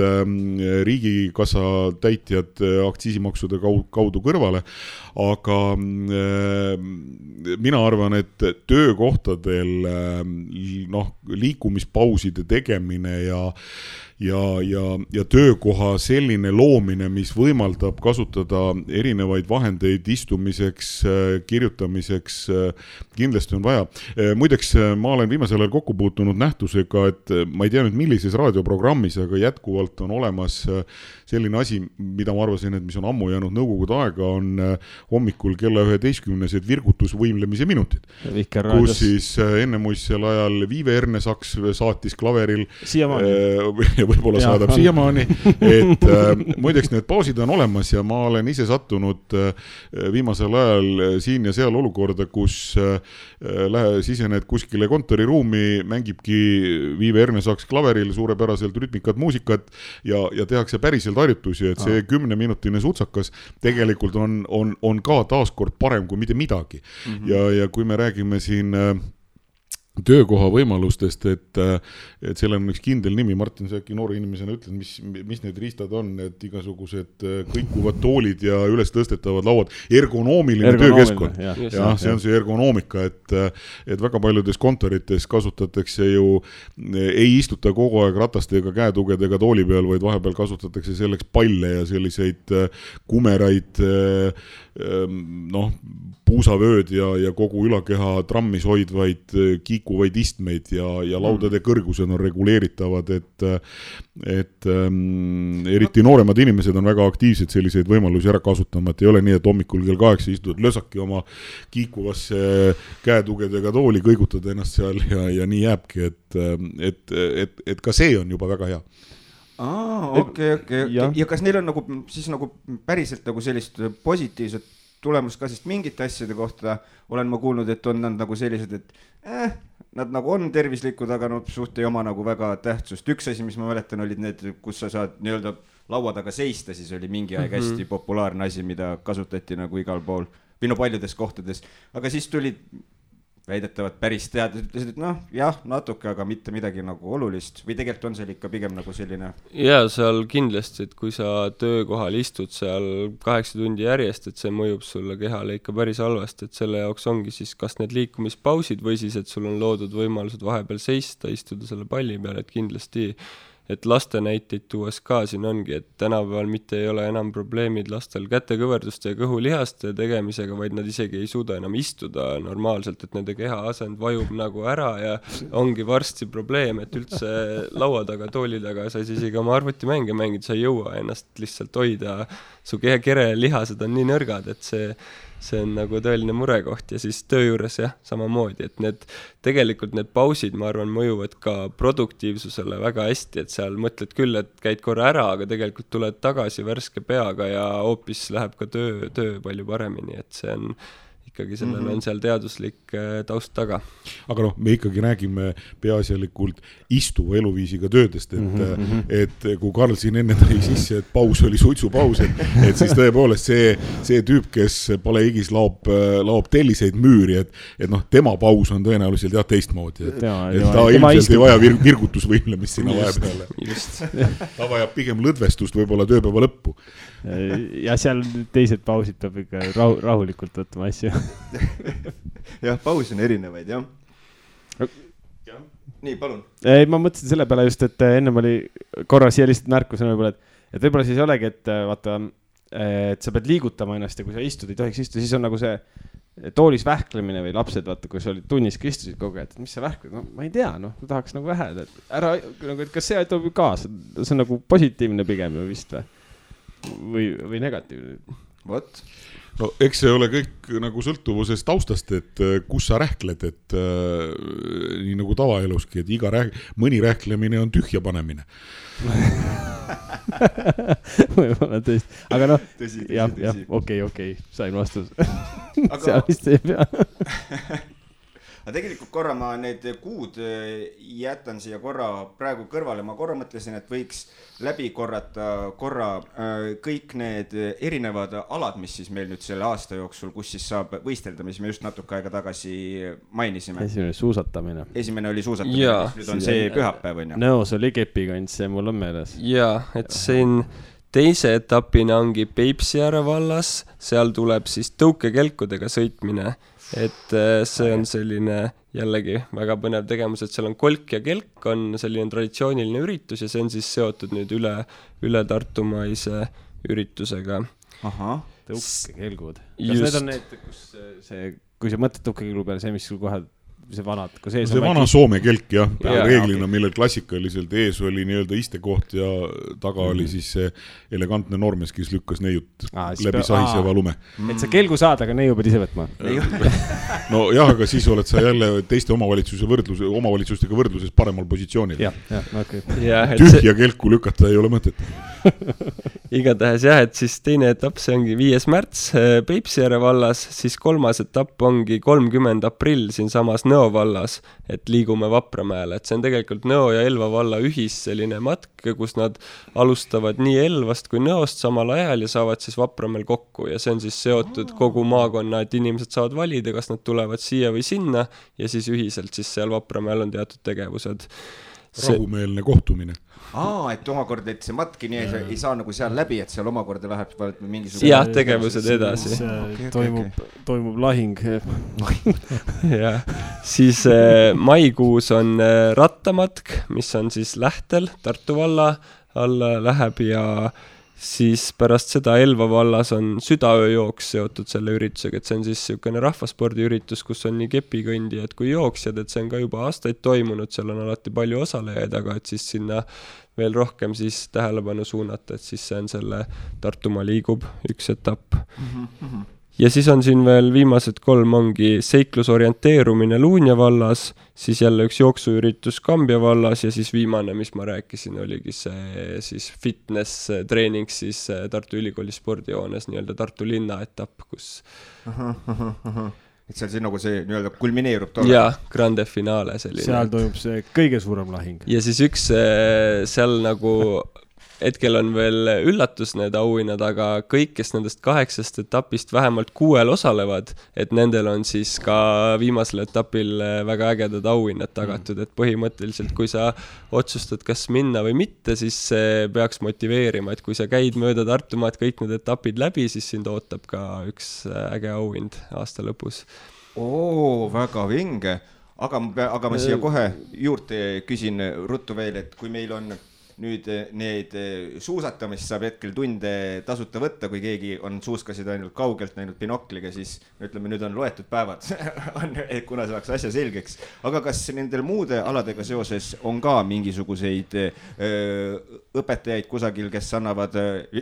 riigikassa täitjad aktsiisimaksude kaudu kõrvale, aga mina arvan, et töökohtadel liikumispauside tegemine ja töökoha selline loomine, mis võimaldab kasutada erinevaid vahendeid istumiseks, kirjutamiseks, kindlasti on vaja. Muideks, ma olen viimasel ajal kokku puutunud nähtusega, et ma ei tea nüüd millises raadioprogrammis, aga jätkuvalt on olemas selline asi, mida ma arvasin, et mis on ammu jäänud nõukogude aega, on hommikul kella 11-sed virgutusvõimlemise minutid. Kus siis enne muistsel ajal Viive Ernesaks saatis klaveril võib-olla saadab siiamaani, et muideks need pausid on olemas ja ma olen ise sattunud viimasel ajal siin ja seal olukorda, kus sisened kuskile kontoriruumi, mängibki Viive Ernesaks klaveril suurepäraselt rütmikat muusikat ja tehakse päriselt harjutusi, et see 10-minutine sutsakas tegelikult on ka taaskord parem kui mitte midagi. Ja kui me räägime siin töökoha võimalustest, et seal on üks kindel nimi, Martin, sa äkki noore inimesena ütled, mis need riistad on, et igasugused kõikuvad toolid ja üles tõstetavad lauad, ergonoomiline töökeskkond. Ja see on see ergonoomika, et väga paljudes kontorites kasutatakse ju, ei istuta kogu aeg ratastega, käetugedega tooli peal, vaid vahepeal kasutatakse selleks palle ja selliseid kumeraid puusavööd ja kogu ülakeha trammis hoidvaid liikuvaid istmeid ja laudade kõrgused on reguleeritavad, et eriti nooremad inimesed on väga aktiivsed selliseid võimalusi ära kasutama, et ei ole nii, et hommikul kell 8 istud lösaki oma kiikuvasse käetugedega tooli, kõigutad ennast seal ja nii jääbki, et ka see on juba väga hea. Okei. Ja kas neil on nagu, siis nagu päriselt nagu sellist positiivset tulemust ka, sest mingite asjade kohta olen ma kuulnud, et on nad nagu sellised, et nad nagu on tervislikud, aga suht ei oma nagu väga tähtsust. Üks asi, mis ma mäletan, olid need, kus sa saad nii-öelda laua taga seista, siis oli mingi aeg hästi populaarne asi, mida kasutati nagu igal pool, või paljudes kohtades, aga siis tulid väidetavad päris teadlased, ütlesid, et jah, natuke, aga mitte midagi nagu olulist või tegelikult on seal ikka pigem nagu selline. Ja seal kindlasti, et kui sa töökohal istud seal 8 tundi järjest, et see mõjub sulle kehale ikka päris halvasti, et selle jaoks ongi siis kas need liikumispausid või siis, et sul on loodud võimalused vahepeal seista, istuda selle palli peal, et kindlasti et laste näiteid tuues ka siin ongi, et tänapäeval mitte ei ole enam probleemid lastel kätekõverduste ja kõhulihaste tegemisega, vaid nad isegi ei suuda enam istuda normaalselt, et nende keha asend vajub nagu ära ja ongi varsti probleem, et üldse laua taga, tooli taga sa isegi oma arvutimänge mängida, sa ei jõua ennast lihtsalt hoida, su kere lihased on nii nõrgad, et see on nagu tõeline murekoht ja siis töö juures jah, samamoodi, et tegelikult need pausid, ma arvan, mõjuvad ka produktiivsusele väga hästi, et seal mõtled küll, et käid korra ära, aga tegelikult tuled tagasi värske peaga ja hoopis läheb ka töö palju paremini, et see on ikkagi sellel on seal teaduslik taust taga. Aga me ikkagi räägime peaasjalikult istuva eluviisiga töödest, et kui Karl siin enne tõi sisse, et paus oli suitsupaus, et siis tõepoolest see tüüp, kes palehigis laob telliseid müüri, et tema paus on tõenäoliselt teistmoodi, et ta ilmselt ei vaja virgutusvõimlemist sinna vahepeale. Ta vajab pigem lõdvestust võib-olla tööpäeva lõppu. Ja seal teised pausid peab ikka rahulikult võtma asju. Jah, paus on erinevaid, jah. Nii, palun. Ei, ma mõtlesin selle peale just, et ennem oli korra siia lihtsalt märkusena võib-olla, et võib-olla siis olegi, et vaata, et sa pead liigutama ennast ja kui sa istud, ei tohiks istuda, siis on nagu see toolis vähklemine või lapsed, vaata, kui sa olid tunnis, kui istusid kogu aeg, et mis sa vähkled? Ma ei tea, tahaks nagu väheda, et ära, nagu, et kas see aitab kaasa? See on nagu positiivne pigem ju vist või negatiivne? What? No eks see ole kõik nagu sõltuvusest taustast, et kus sa rähkled, et nii nagu tavaeluski, et mõni rähklemine on tühja panemine. Võib-olla tõesti, aga jah, okei, sain vastus. Seal vist ei pea. Aga tegelikult korra ma need kuud jätan siia korra praegu kõrvale. Ma korra mõtlesin, et võiks läbi korrata kõik need erinevad alad, mis siis meil nüüd selle aasta jooksul, kus siis saab võistelda, mis me just natuke aega tagasi mainisime. Esimene oli suusatamine, nüüd on see pühapäev, on ju? Nõos oli kepikants, see mul on meeles. Jaa, et siin teise etapina ongi Peipsiääre vallas, seal tuleb siis tõukekelkudega sõitmine. Et see on selline jällegi väga põnev tegemus, et seal on kolk ja kelk on selline traditsiooniline üritus ja see on siis seotud nüüd üle Tartumaise üritusega. Aha, tõukekelgud. Kas need on need, kui sa mõtled tõukekelgu peale, see mis sul kohe see vana Soome kelk, jah. Reeglina, millel klassikaliselt ees oli nii-öelda istekoht ja taga oli siis see elegantne noormees, kes lükkas neiut läbi sahiseva lume. Et sa kelgu saad, aga neiu pead ise võtma. No jah, aga siis oled sa jälle teiste omavalitsustega võrdluses paremal positsioonil. Tühja kelku lükata ei ole mõtet. Igatahes jah, et siis teine etapp, see ongi 5. märts Peipsiääre vallas, siis 3. etapp ongi 30. aprill siin samas Nõo vallas, et liigume Vapramäele, et see on tegelikult Nõo ja Elva valla ühis selline matk, kus nad alustavad nii Elvast kui Nõost samal ajal ja saavad siis Vapramäel kokku ja see on siis seotud kogu maakonna, et inimesed saavad valida, kas nad tulevad siia või sinna ja siis ühiselt siis seal Vapramäel on teatud tegevused. Rahumeelne kohtumine. Et omakorda, et see matki nii ei saa nagu seal läbi, et seal omakorda läheb mingisugune... Jah, tegevused edasi. Toimub lahing. Ja. Siis maikuus on rattamatk, mis on siis Lähtel, Tartu valla alla läheb ja siis pärast seda Elva vallas on südaööjooks seotud selle üritusega, et see on siis niisugune rahvaspordiüritus, kus on nii kepikõndijad kui jooksjad, et see on ka juba aastaid toimunud, seal on alati palju osalejaid, aga et siis sinna veel rohkem siis tähelepanu suunata, et siis see on selle Tartumaa liigub üks etapp. Ja siis on siin veel viimased 3 ongi seiklusorienteerumine Luunja vallas, siis jälle üks jooksuüritus Kambja vallas ja siis viimane, mis ma rääkisin, oligi see siis fitness treening siis Tartu Ülikooli spordijoones, nii-öelda Tartu linna etapp, kus... Et seal siis nagu see nii-öelda kulmineerub tolle. Jaa, grande finale selline. Seal toimub see kõige suurem lahing. Ja siis üks seal nagu... Hetkel on veel üllatus need auhinnad, aga kõik, kes nendest 8 etapist vähemalt 6 osalevad, et nendel on siis ka viimasel etapil väga ägedad auhinnad tagatud, et põhimõtteliselt kui sa otsustad, kas minna või mitte, siis see peaks motiveerima, et kui sa käid mööda Tartumaad kõik need etapid läbi, siis sind ootab ka üks äge auhind aasta lõpus. Väga vinge, aga ma siia kohe juurde küsin ruttu veel, et kui meil on nüüd need suusatamist saab hetkel tunde tasuta võtta, kui keegi on suuskasid ainult kaugelt näinud binokliga, siis ütleme, nüüd on loetud päevad, kuna saaks asja selgeks. Aga kas nendel muude aladega seoses on ka mingisuguseid õpetajaid kusagil, kes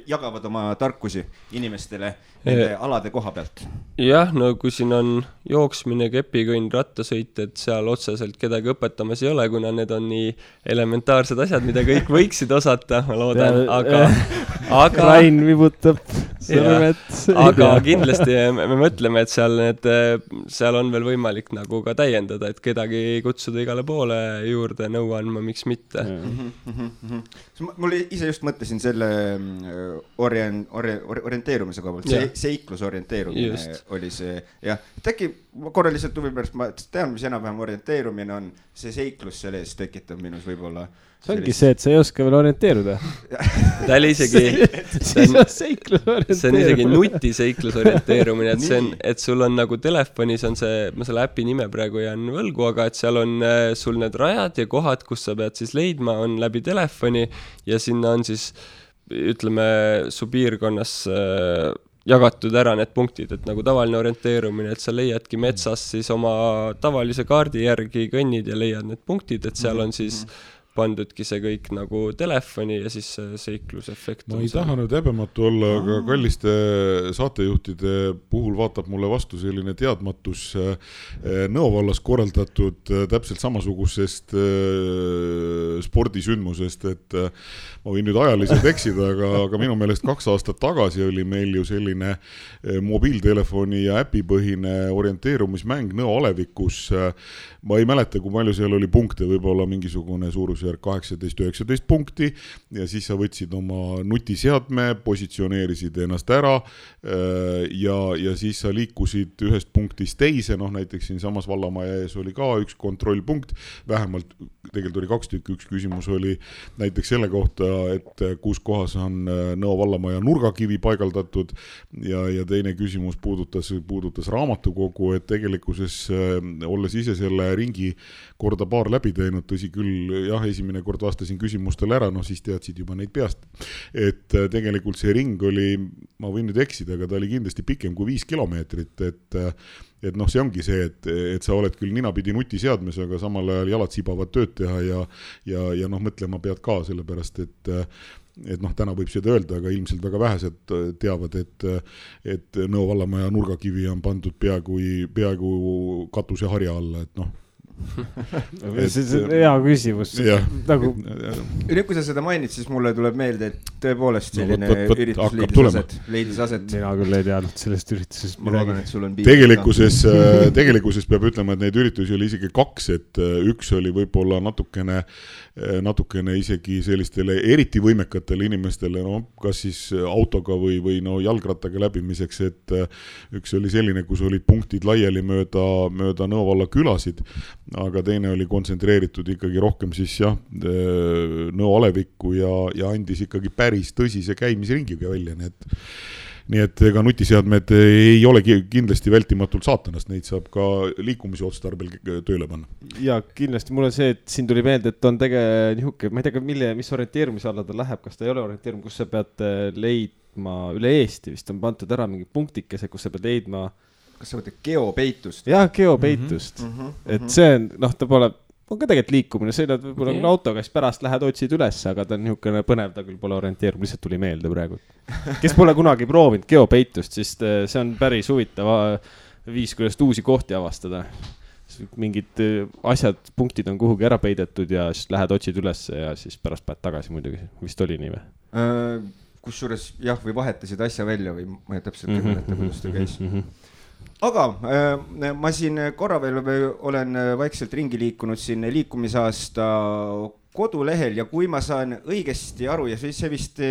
jagavad oma tarkusi inimestele nende alade koha pealt? Jah, no kui siin on jooksmine, kepikõnn, rattasõit, et seal otseselt kedagi õpetamas ei ole, kuna need on nii elementaarsed asjad, mida kõik võiksid osata, ma loodan, aga Rain vibutab sõrmed. Aga kindlasti me mõtleme, et seal on veel võimalik nagu ka täiendada, et kedagi kutsuda igale poole juurde nõu andma, miks mitte. Mul ise just mõtlesin selle orienteerumise koha pealt, seiklusorienteerumine oli see, jah, et äkki korraliselt huvi pärast, ma tean, mis enam-vähem orienteerimine on, see seiklus selles tekitab minus võib-olla. See ongi see, et sa ei oska veel orienteeruda. Ta oli isegi see on isegi nutiseiklusorienteerumine, et sul on nagu telefonis on see, ma selle äpi nime praegu jään võlgu, aga et seal on sul need rajad ja kohad, kus sa pead siis leidma, on läbi telefoni ja sinna on siis, ütleme, su piirkonnas jagatud ära need punktid, et nagu tavaline orienteerumine, et sa leiadki metsas siis oma tavalise kaardi järgi kõnnid ja leiad need punktid, et seal on siis pandudki see kõik nagu telefoni ja siis seiklusefekt. Ma ei taha nüüd häbematu olla, aga kalliste saatejuhtide puhul vaatab mulle vastu selline teadmatus Nõo vallas korraldatud täpselt samasugusest spordisündmusest, et ma võin nüüd ajaliselt eksida, aga minu meelest 2 aastat tagasi oli meil ju selline mobiiltelefoni ja äpipõhine orienteerumismäng Nõo alevikus. Ma ei mäleta, kui palju seal oli punkte, võib-olla mingisugune suurusjärk 18-19 punkti ja siis sa võtsid oma nutiseadme, positsioneerisid ennast ära ja siis sa liikusid ühest punktist teise, näiteks siin samas Vallamaja ees oli ka üks kontrollpunkt, vähemalt tegelikult oli 2 tükki, üks küsimus oli näiteks selle kohta, et kus kohas on Nõo Vallamaja nurgakivi paigaldatud ja teine küsimus puudutas raamatukogu, et tegelikkuses olles ise selle ringi korda paar läbi teinud, tõsi küll, jah, esimene kord vastasin küsimustele ära, siis teadsid juba neid peast. Et tegelikult see ring oli, ma võin nüüd eksida, aga ta oli kindlasti pikem kui 5 kilomeetrit, et see ongi see, et sa oled küll ninapidi nutiseadmes, aga samal ajal jalad sibavad tööd teha ja mõtlema pead ka, sellepärast, et täna võib seda öelda, aga ilmselt väga vähesed teavad, et Nõo Vallamaja nurgakivi on pandud peaaegu katuse harja alla, et see on hea küsimus. Nüüd, kui sa seda mainid, siis mulle tuleb meelde, et tõepoolest selline üritus leidis aset. Mina küll ei teadnud sellest üritusest. Tegelikkuses peab ütlema, et neid üritusi oli isegi 2, et üks oli võib-olla natukene isegi sellistele eriti võimekatele inimestele, kas siis autoga või jalgrattaga läbimiseks, et üks oli selline, kus olid punktid laiali mööda Nõo valla külasid, aga teine oli kontsentreeritud ikkagi rohkem siis Nõo alevikku ja andis ikkagi päris tõsise käimisringiga välja, nii et ega nutiseadmed ei ole kindlasti vältimatult saatanast, neid saab ka liikumise otstarbel tööle panna. Ja kindlasti mulle see, et siin tuli meelde, et on nihuke, ma ei tea, mis orienteerumise alla ta läheb, kas ta ei ole orienteerum, kus sa pead leidma üle Eesti, vist on pandud ära mingi punktikese, kus sa pead leidma. Kas sa võtad geopeitust? Jah, geopeitust. Et see on, ta pole, on ka tegelikult liikumine, see on võib-olla autoga, siis pärast lähed otsid üles, aga ta on niisugune põnev, ta küll pole orienteerum, lihtsalt tuli meelde praegu. Kes pole kunagi proovinud geopeitust, siis see on päris huvitav viis, kuidas uusi kohti avastada. Mingid asjad, punktid on kuhugi ära peidetud ja siis lähed otsid üles ja siis pärast päed tagasi muidugi. Vist oli nii või? Kusjuures jah, või vahetasid asja välja või ma ei täpselt ei mäleta, kuidas ta käis. Aga ma siin korra veel olen vaikselt ringi liikunud siin liikumisaasta kodulehel ja kui ma saan õigesti aru ja see vist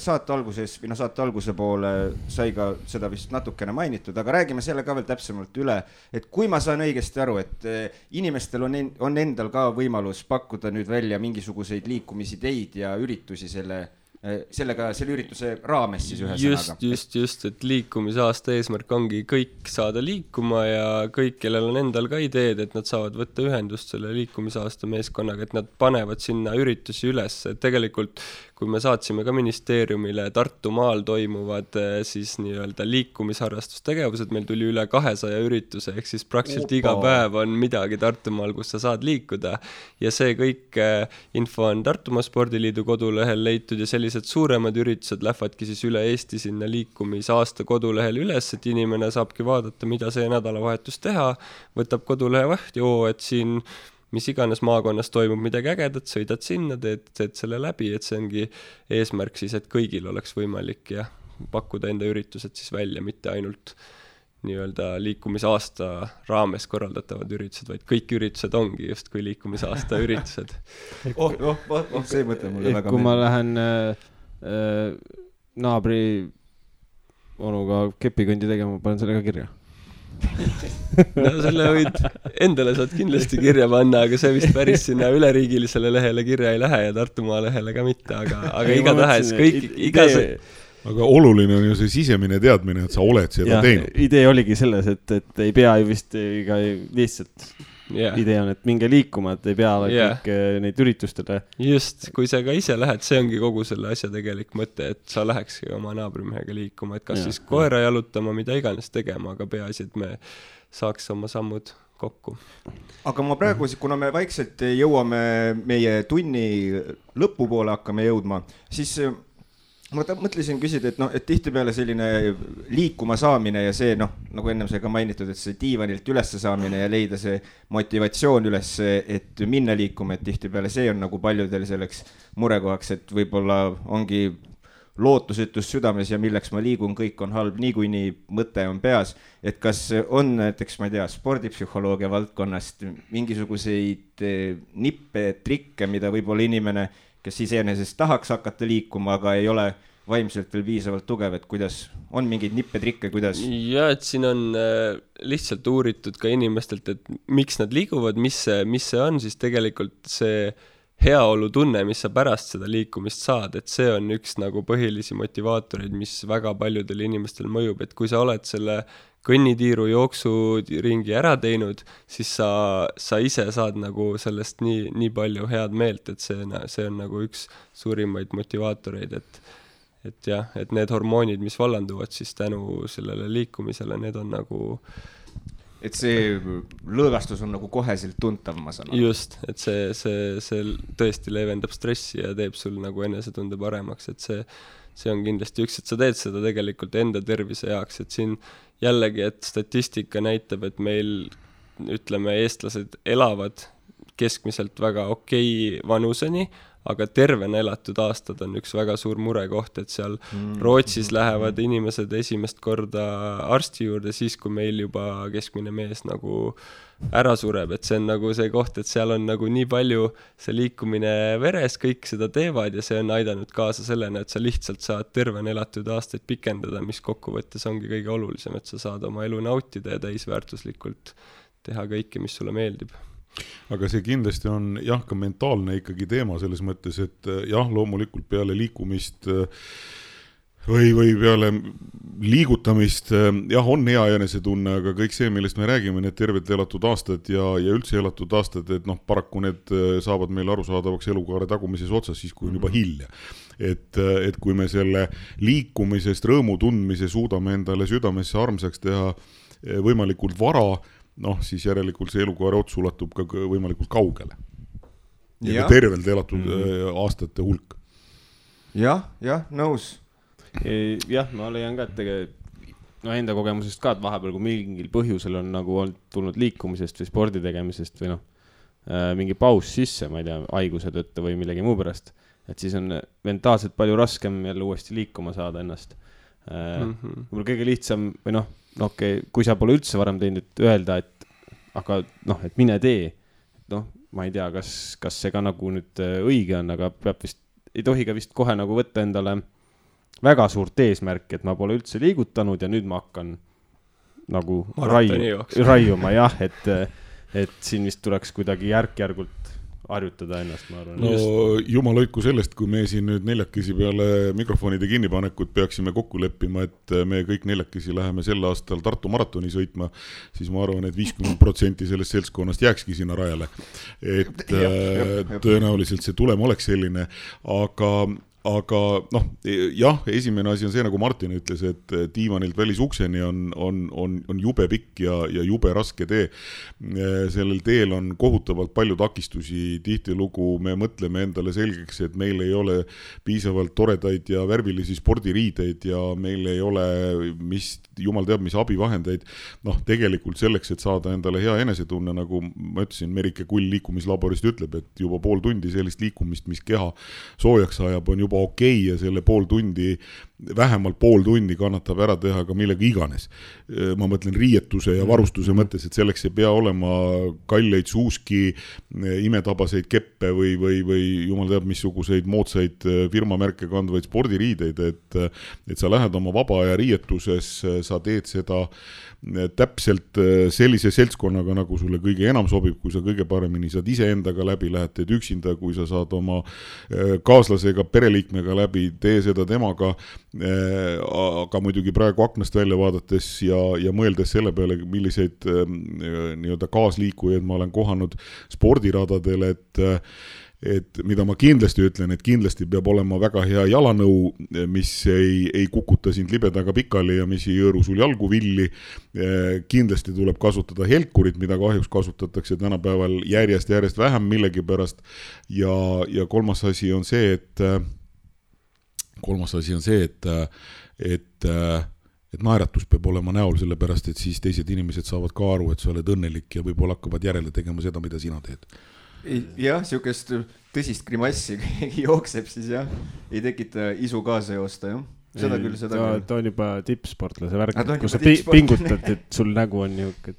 saate alguse poole sai ka seda vist natukene mainitud, aga räägime selle ka veel täpsemalt üle, et kui ma saan õigesti aru, et inimestel on endal ka võimalus pakkuda nüüd välja mingisuguseid liikumisideid ja üritusi selle ürituse raames siis ühe sõnaga. Just, et liikumisaasta eesmärk ongi kõik saada liikuma ja kõik, kellel on endal ka ideed, et nad saavad võtta ühendust selle liikumisaasta meeskonnaga, et nad panevad sinna üritusi üles, et tegelikult kui me saatsime ka ministeeriumile Tartumaal toimuvad siis nii-öelda liikumisharrastustegevused, meil tuli üle 200 ürituse, ehk siis praktiliselt iga päev on midagi Tartumaal, kus sa saad liikuda ja see kõik info on Tartumaa Spordiliidu kodulehel leitud ja sellised suuremad üritused lähevadki siis üle Eesti sinna liikumisaasta kodulehel üles, et inimene saabki vaadata, mida see nädalavahetus teha, võtab kodulehe vahti, et siin mis iganes maakonnas toimub midagi ägedat, sõidad sinna, teed selle läbi, et see ongi eesmärk siis, et kõigil oleks võimalik ja pakkuda enda üritused siis välja, mitte ainult nii-öelda liikumisaasta raames korraldatavad üritused, vaid kõik üritused ongi just kui liikumisaasta üritused. See mõte mulle väga kui ma lähen naabri onuga kepikõndi tegema, panen selle ka kirja. No selle võid endale saad kindlasti kirja panna, aga see vist päris sinna üleriigilisele lehele kirja ei lähe ja Tartumaa lehele ka mitte, aga igatahes kõik Aga oluline on ju see sisemine teadmine, et sa oled seda teinud. Idee oligi selles, et ei pea ju vist lihtsalt idee on, et minge liikuma, et ei pea kõik neid üritustele. Just, kui sa ka ise lähed, see ongi kogu selle asja tegelik mõte, et sa lähekski oma naabrimehega liikuma, et kas siis koera jalutama, mida iganes tegema, aga peaasi, et me saaks oma sammud kokku. Aga ma praegu, kuna me vaikselt jõuame meie tunni lõpupoole hakkame jõudma, siis ma mõtlesin küsida, et tihtipeale selline liikuma saamine ja see, nagu ennem sai ka mainitud, et see diivanilt üles saamine ja leida see motivatsioon üles, et minna liikuma, et tihtipeale see on nagu paljudel selleks murekohaks, et võib-olla ongi lootusetus südames ja milleks ma liigun, kõik on halb, niikuinii mõte on peas, et kas on näiteks, ma ei tea, spordipsühholoogia valdkonnast mingisuguseid nippe, trikke, mida võib-olla inimene kes iseenesest tahaks hakata liikuma, aga ei ole vaimselt veel piisavalt tugev, et kuidas on mingeid nippetrikke, kuidas? Ja, et siin on lihtsalt uuritud ka inimestelt, et miks nad liiguvad, mis see on, siis tegelikult see heaolu tunne, mis sa pärast seda liikumist saad, et see on üks nagu põhilisi motivaatoreid, mis väga paljudel inimestel mõjub, et kui sa oled selle kõnnitiiru jooksu ringi ära teinud, siis sa ise saad nagu sellest nii palju head meelt, et see on nagu üks suurimaid motivaatoreid, et jah, et need hormoonid, mis vallanduvad siis tänu sellele liikumisele, need on nagu et see lõõgastus on nagu koheselt tuntav, ma saan aru. Just, et see tõesti leevendab stressi ja teeb sul nagu enesetunde paremaks, et see on kindlasti üks, et sa teed seda tegelikult enda tervise jaoks, et siin jällegi, et statistika näitab, et meil, ütleme, eestlased elavad keskmiselt väga okei vanuseni, aga tervena elatud aastad on üks väga suur murekoht, et seal Rootsis lähevad inimesed esimest korda arsti juurde siis, kui meil juba keskmine mees nagu ära sureb, et see on nagu see koht, et seal on nagu nii palju see liikumine veres, kõik seda teevad ja see on aidanud kaasa sellena, et sa lihtsalt saad tervena elatud aastaid pikendada, mis kokkuvõttes ongi kõige olulisem, et sa saad oma elu nautida ja täisväärtuslikult teha kõike, mis sulle meeldib. Aga see kindlasti on jah ka mentaalne ikkagi teema selles mõttes, et jah, loomulikult peale liikumist või peale liigutamist, jah, on hea enesetunne, aga kõik see, millest me räägime, need tervelt elatud aastad ja üldse elatud aastad, et noh, paraku need saavad meil arusaadavaks elukaare tagumises otsas siis, kui on juba hilja. Et kui me selle liikumisest, rõõmu tundmise suudame endale südamesse armsaks teha võimalikult vara, noh, siis järelikult see elukaare ots ulatub ka võimalikult kaugele. Ja tervelt elatud aastate hulk. Jah, nõus. Jah, ma leian ka, et enda kogemusest ka, et vahepeal, kui mingil põhjusel on nagu tulnud liikumisest või spordi tegemisest või mingi paus sisse, ma ei tea, haiguse tõttu või millegi muu pärast, et siis on mentaalselt palju raskem jälle uuesti liikuma saada ennast. Võib-olla kõige lihtsam või kui sa pole üldse varem teinud, et öelda, et mine tee. Ma ei tea, kas see ka nagu nüüd õige on, aga ei tohi ka vist kohe nagu võtta endale väga suurt eesmärki, et ma pole üldse liigutanud ja nüüd ma hakkan nagu raiuma, jah, et siin vist tuleks kuidagi järk-järgult harjutada ennast, ma arvan. No jumal hoidku sellest, kui me siin nüüd neljakesi peale mikrofonide kinnipanekut peaksime kokku leppima, et me kõik neljakesi läheme sel aastal Tartu maratoni sõitma, siis ma arvan, et 50% sellest seltskonnast jääkski sinna rajale. Et tõenäoliselt see tulem oleks selline, aga jah, esimene asi on see, nagu Martin ütles, et diivanilt välisukseni on jube pikk ja jube raske tee. Sellel teel on kohutavalt palju takistusi, tihtilugu me mõtleme endale selgeks, et meil ei ole piisavalt toredaid ja värvilisi spordiriideid ja meil ei ole jumal teab, mis abivahendeid. Tegelikult selleks, et saada endale hea enesetunne, nagu ma ütlesin, Merike Kull liikumislaborist ütleb, et juba pool tundi sellist liikumist, mis keha soojaks ajab, on juba okei ja selle vähemalt pool tundi kannatab ära teha ka millega iganes. Ma mõtlen riietuse ja varustuse mõttes, et selleks ei pea olema kalleid suuski, imetabaseid keppe või jumal teab missuguseid moodsaid firmamärke kandvaid spordiriideid, et sa lähed oma vaba aja riietuses, sa teed seda täpselt sellise seltskonnaga, nagu sulle kõige enam sobib, kui sa kõige paremini saad ise endaga läbi, lähed teed üksinda, kui sa saad oma kaaslasega, pereliikmega läbi, tee seda temaga, aga muidugi praegu aknast välja vaadates ja mõeldes selle peale, milliseid nii-öelda kaasliikujaid ma olen kohanud spordiradadel, et mida ma kindlasti ütlen, et kindlasti peab olema väga hea jalanõu, mis ei kukuta sind libedaga pikali ja mis ei jõõru sul jalgu villi. Kindlasti tuleb kasutada helkurit, mida kahjuks kasutatakse tänapäeval järjest vähem millegi pärast. Ja kolmas asi on see, et naeratus peab olema näol, sellepärast, et siis teised inimesed saavad ka aru, et sa oled õnnelik ja võib-olla hakkavad järele tegema seda, mida sina teed. Jah, siukest tõsist grimassi, keegi jookseb, siis jah, ei tekita isu kaasa joosta, jah. Seda küll. Ta on juba tippsportlase värk, kui sa pingutad, et sul nägu on niuke, et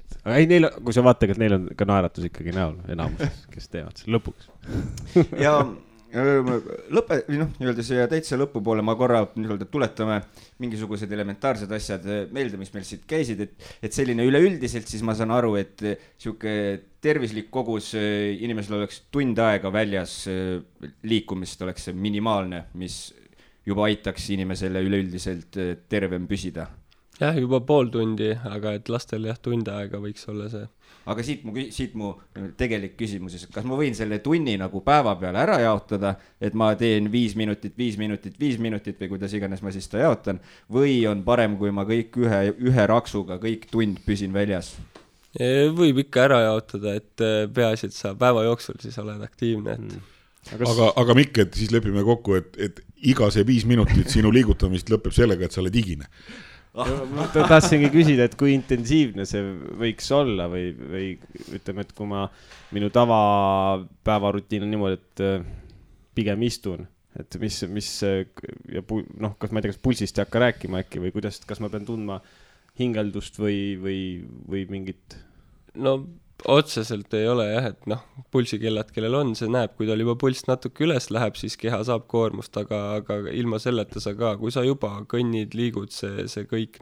kui sa vaatad, et neil on ka naeratus ikkagi näol enamuses, kes teevad selle lõpuks. Ja nii-öelda siia täitsa lõpupoole ma korra tuletame mingisugused elementaarsed asjad meelde, mis meil siit käisid, et selline üleüldiselt siis ma saan aru, et siuke tervislik kogus inimesel oleks tund aega väljas liikumist oleks see minimaalne, mis juba aitaks inimesele üleüldiselt tervem püsida. Jah, juba pool tundi, aga et lastel tund aega võiks olla see. Aga siit mu tegelik küsimus, et kas ma võin selle tunni nagu päeva peale ära jaotada, et ma teen 5 minutit või kuidas iganes ma siis ta jaotan, või on parem, kui ma kõik ühe raksuga kõik tund püsin väljas? Võib ikka ära jaotada, et peaasi, et sa päeva jooksul siis oled aktiivne. Aga Mikk, et siis lepime kokku, et iga see 5 minutit sinu liigutamist lõpeb sellega, et sa oled higine. Ma tahtsingi küsida, et kui intensiivne see võiks olla või ütleme, et kui minu tavapäevarutiin on niimoodi, et pigem istun, et mis kas ma ei tea, kas pulsist ei hakka rääkima äkki või kuidas, kas ma pean tundma hingeldust või mingit? No otseselt ei ole jah, et pulsikellad, kellel on, see näeb, kui tal juba pulss natuke üles läheb, siis keha saab koormust, aga ilma selleta sa ka, kui sa juba kõnnid, liigud, see kõik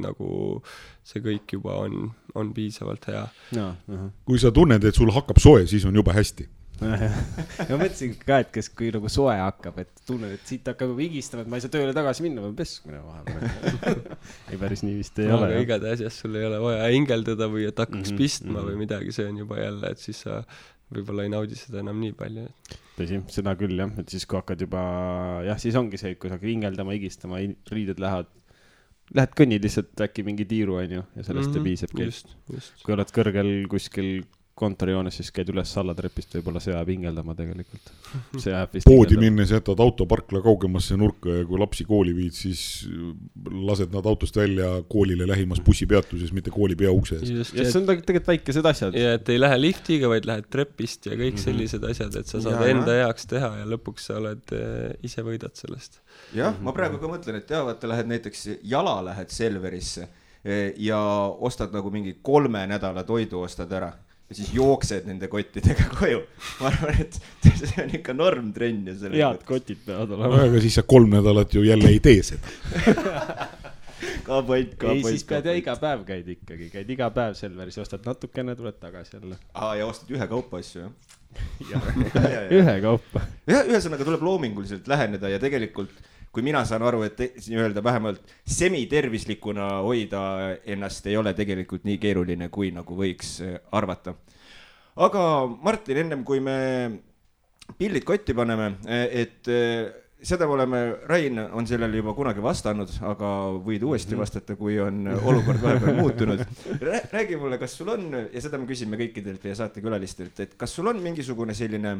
juba on piisavalt hea. Kui sa tunned, et sul hakkab soe, siis on juba hästi. ma mõtlesin ka, et kes kui nagu soe hakkab, et tunned, et siit hakkab vigistama, et ma ei saa tööle tagasi minna, ma peskmine vahepeal. Ei päris nii vist ei ole. Aga igade asjas sul ei ole vaja hingeldada või et hakkaks pistma või midagi, see on juba jälle, et siis sa võib-olla ei naudi seda enam nii palju. Tõsi, seda küll jah, et siis kui hakkad juba, jah, siis ongi see, et kui sa hakkad hingeldama, higistama, riided lähed kõnnid lihtsalt äkki mingi tiiru, on ju, ja sellest piisabki. Kui oled kõrgel kuskil kontorjoones, siis käid üles sallatrepist, võib-olla see ajab hingeldama tegelikult. Poodi minnes jätad autoparkla kaugemasse nurka ja kui lapsi kooli viid, siis lased nad autost välja koolile lähimas bussipeatuses, mitte kooli peaukse ees. Ja see on tegelikult väikesed asjad. Ja et ei lähe liftiga, vaid lähed trepist ja kõik sellised asjad, et sa saad enda heaks teha ja lõpuks sa oled ise võidad sellest. Jah, ma praegu ka mõtlen, et vaata, lähed näiteks jala lähed Selverisse ja ostad nagu mingi 3 nädala toidu ostad ära. Ja siis jooksed nende kottidega koju. Ma arvan, et see on ikka normtrenn. Head kotid peavad olema. Aga siis sa 3 nädalat ju jälle ei tee seda. Ei, siis pead ja iga päev käid iga päev Selveris, ostad natukene, tuled tagasi jälle. Ja ostad ühe kaupa asju, jah? Ühe kaupa. Ühesõnaga tuleb loominguliselt läheneda ja tegelikult kui mina saan aru, et öelda vähemalt semitervislikuna hoida ennast ei ole tegelikult nii keeruline, kui nagu võiks arvata. Aga Martin, ennem kui me pillid kotti paneme, et seda me oleme, Rain on sellele juba kunagi vastanud, aga võid uuesti vastata, kui on olukord vahepeal muutunud. Räägi mulle, kas sul on, ja seda me küsime kõikidelt ja saatekülalistelt, et kas sul on mingisugune selline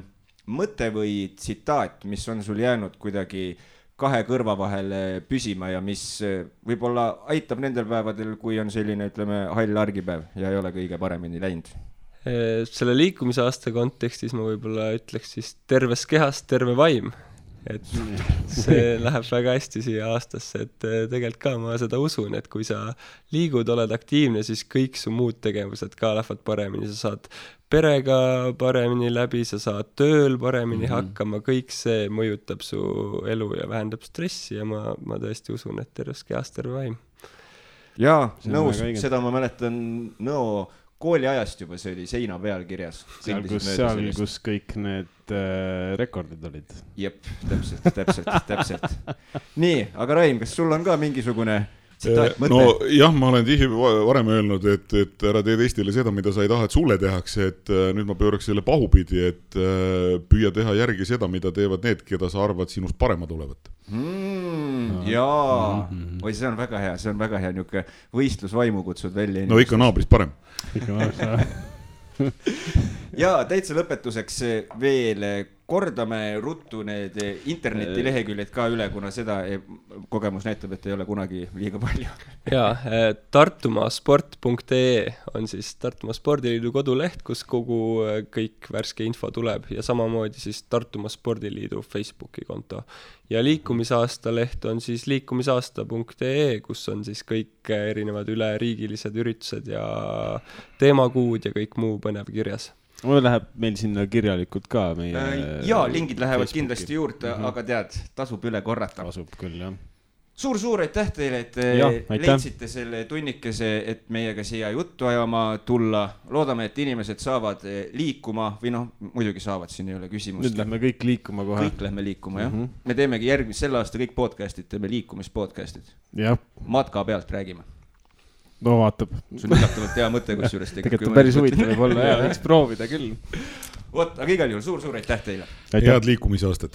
mõte või tsitaat, mis on sul jäänud kuidagi 2 kõrva vahel püsima ja mis võib-olla aitab nendel päevadel, kui on selline, ütleme, hall argipäev ja ei ole kõige paremini läinud? Selle liikumisaasta kontekstis ma võib-olla ütleks siis terves kehas terve vaim. Et see läheb väga hästi siia aastasse, et tegelikult ka ma seda usun, et kui sa liigud, oled aktiivne, siis kõik su muud tegevused ka lähevad paremini, sa saad perega paremini läbi, sa saad tööl paremini hakkama, kõik see mõjutab su elu ja vähendab stressi ja ma tõesti usun, et terves kehas terve vaim. Jaa, nõus, seda ma mäletan kooliajast juba, see oli seina peal kirjas. Seal, kus kõik need rekordid olid. Jep, täpselt. Nii, aga Rain, kas sul on ka mingisugune tsitaat, mõte? No jah, ma olen tihti varem öelnud, et ära tee teistele seda, mida sa ei taha, et sulle tehakse, et nüüd ma pööraks selle pahupidi, et püüa teha järgi seda, mida teevad need, keda sa arvad sinust paremad olevat. Jaa, või see on väga hea, niisugune võistlusvaimu kutsud välja. No ikka naabrist parem. Ja täitsa lõpetuseks veel kordame ruttu need internetileheküljed ka üle, kuna seda kogemus näitab, et ei ole kunagi liiga palju. Jaa, tartumasport.ee on siis Tartumaa Spordiliidu koduleht, kus kogu kõik värske info tuleb ja samamoodi siis Tartumaa Spordiliidu Facebooki konto. Ja liikumisaasta leht on siis liikumisaasta.ee, kus on siis kõik erinevad üleriigilised üritused ja teemakuud ja kõik muu põnev kirjas. Mul läheb meil sinna kirjalikult ka meie... Jaa, lingid lähevad Facebooki kindlasti juurde, aga tead, tasub üle korrata. Tasub küll, jah. Suur aitäh teile, et leidsite selle tunnikese, et meiega siia juttu ajama tulla. Loodame, et inimesed saavad liikuma või muidugi saavad, siin ei ole küsimust. Nüüd lähme kõik liikuma kohe. Kõik lähme liikuma, jah. Me teemegi sel aasta kõik podcastid, teeme liikumispodcastid. Matka pealt räägime. No vaatab. Sul üllatavalt hea mõte, kus juures tegelikult päris huvitav võib olla, võiks proovida küll. Aga igal juhul suur aitäh teile. Head liikumisaastat.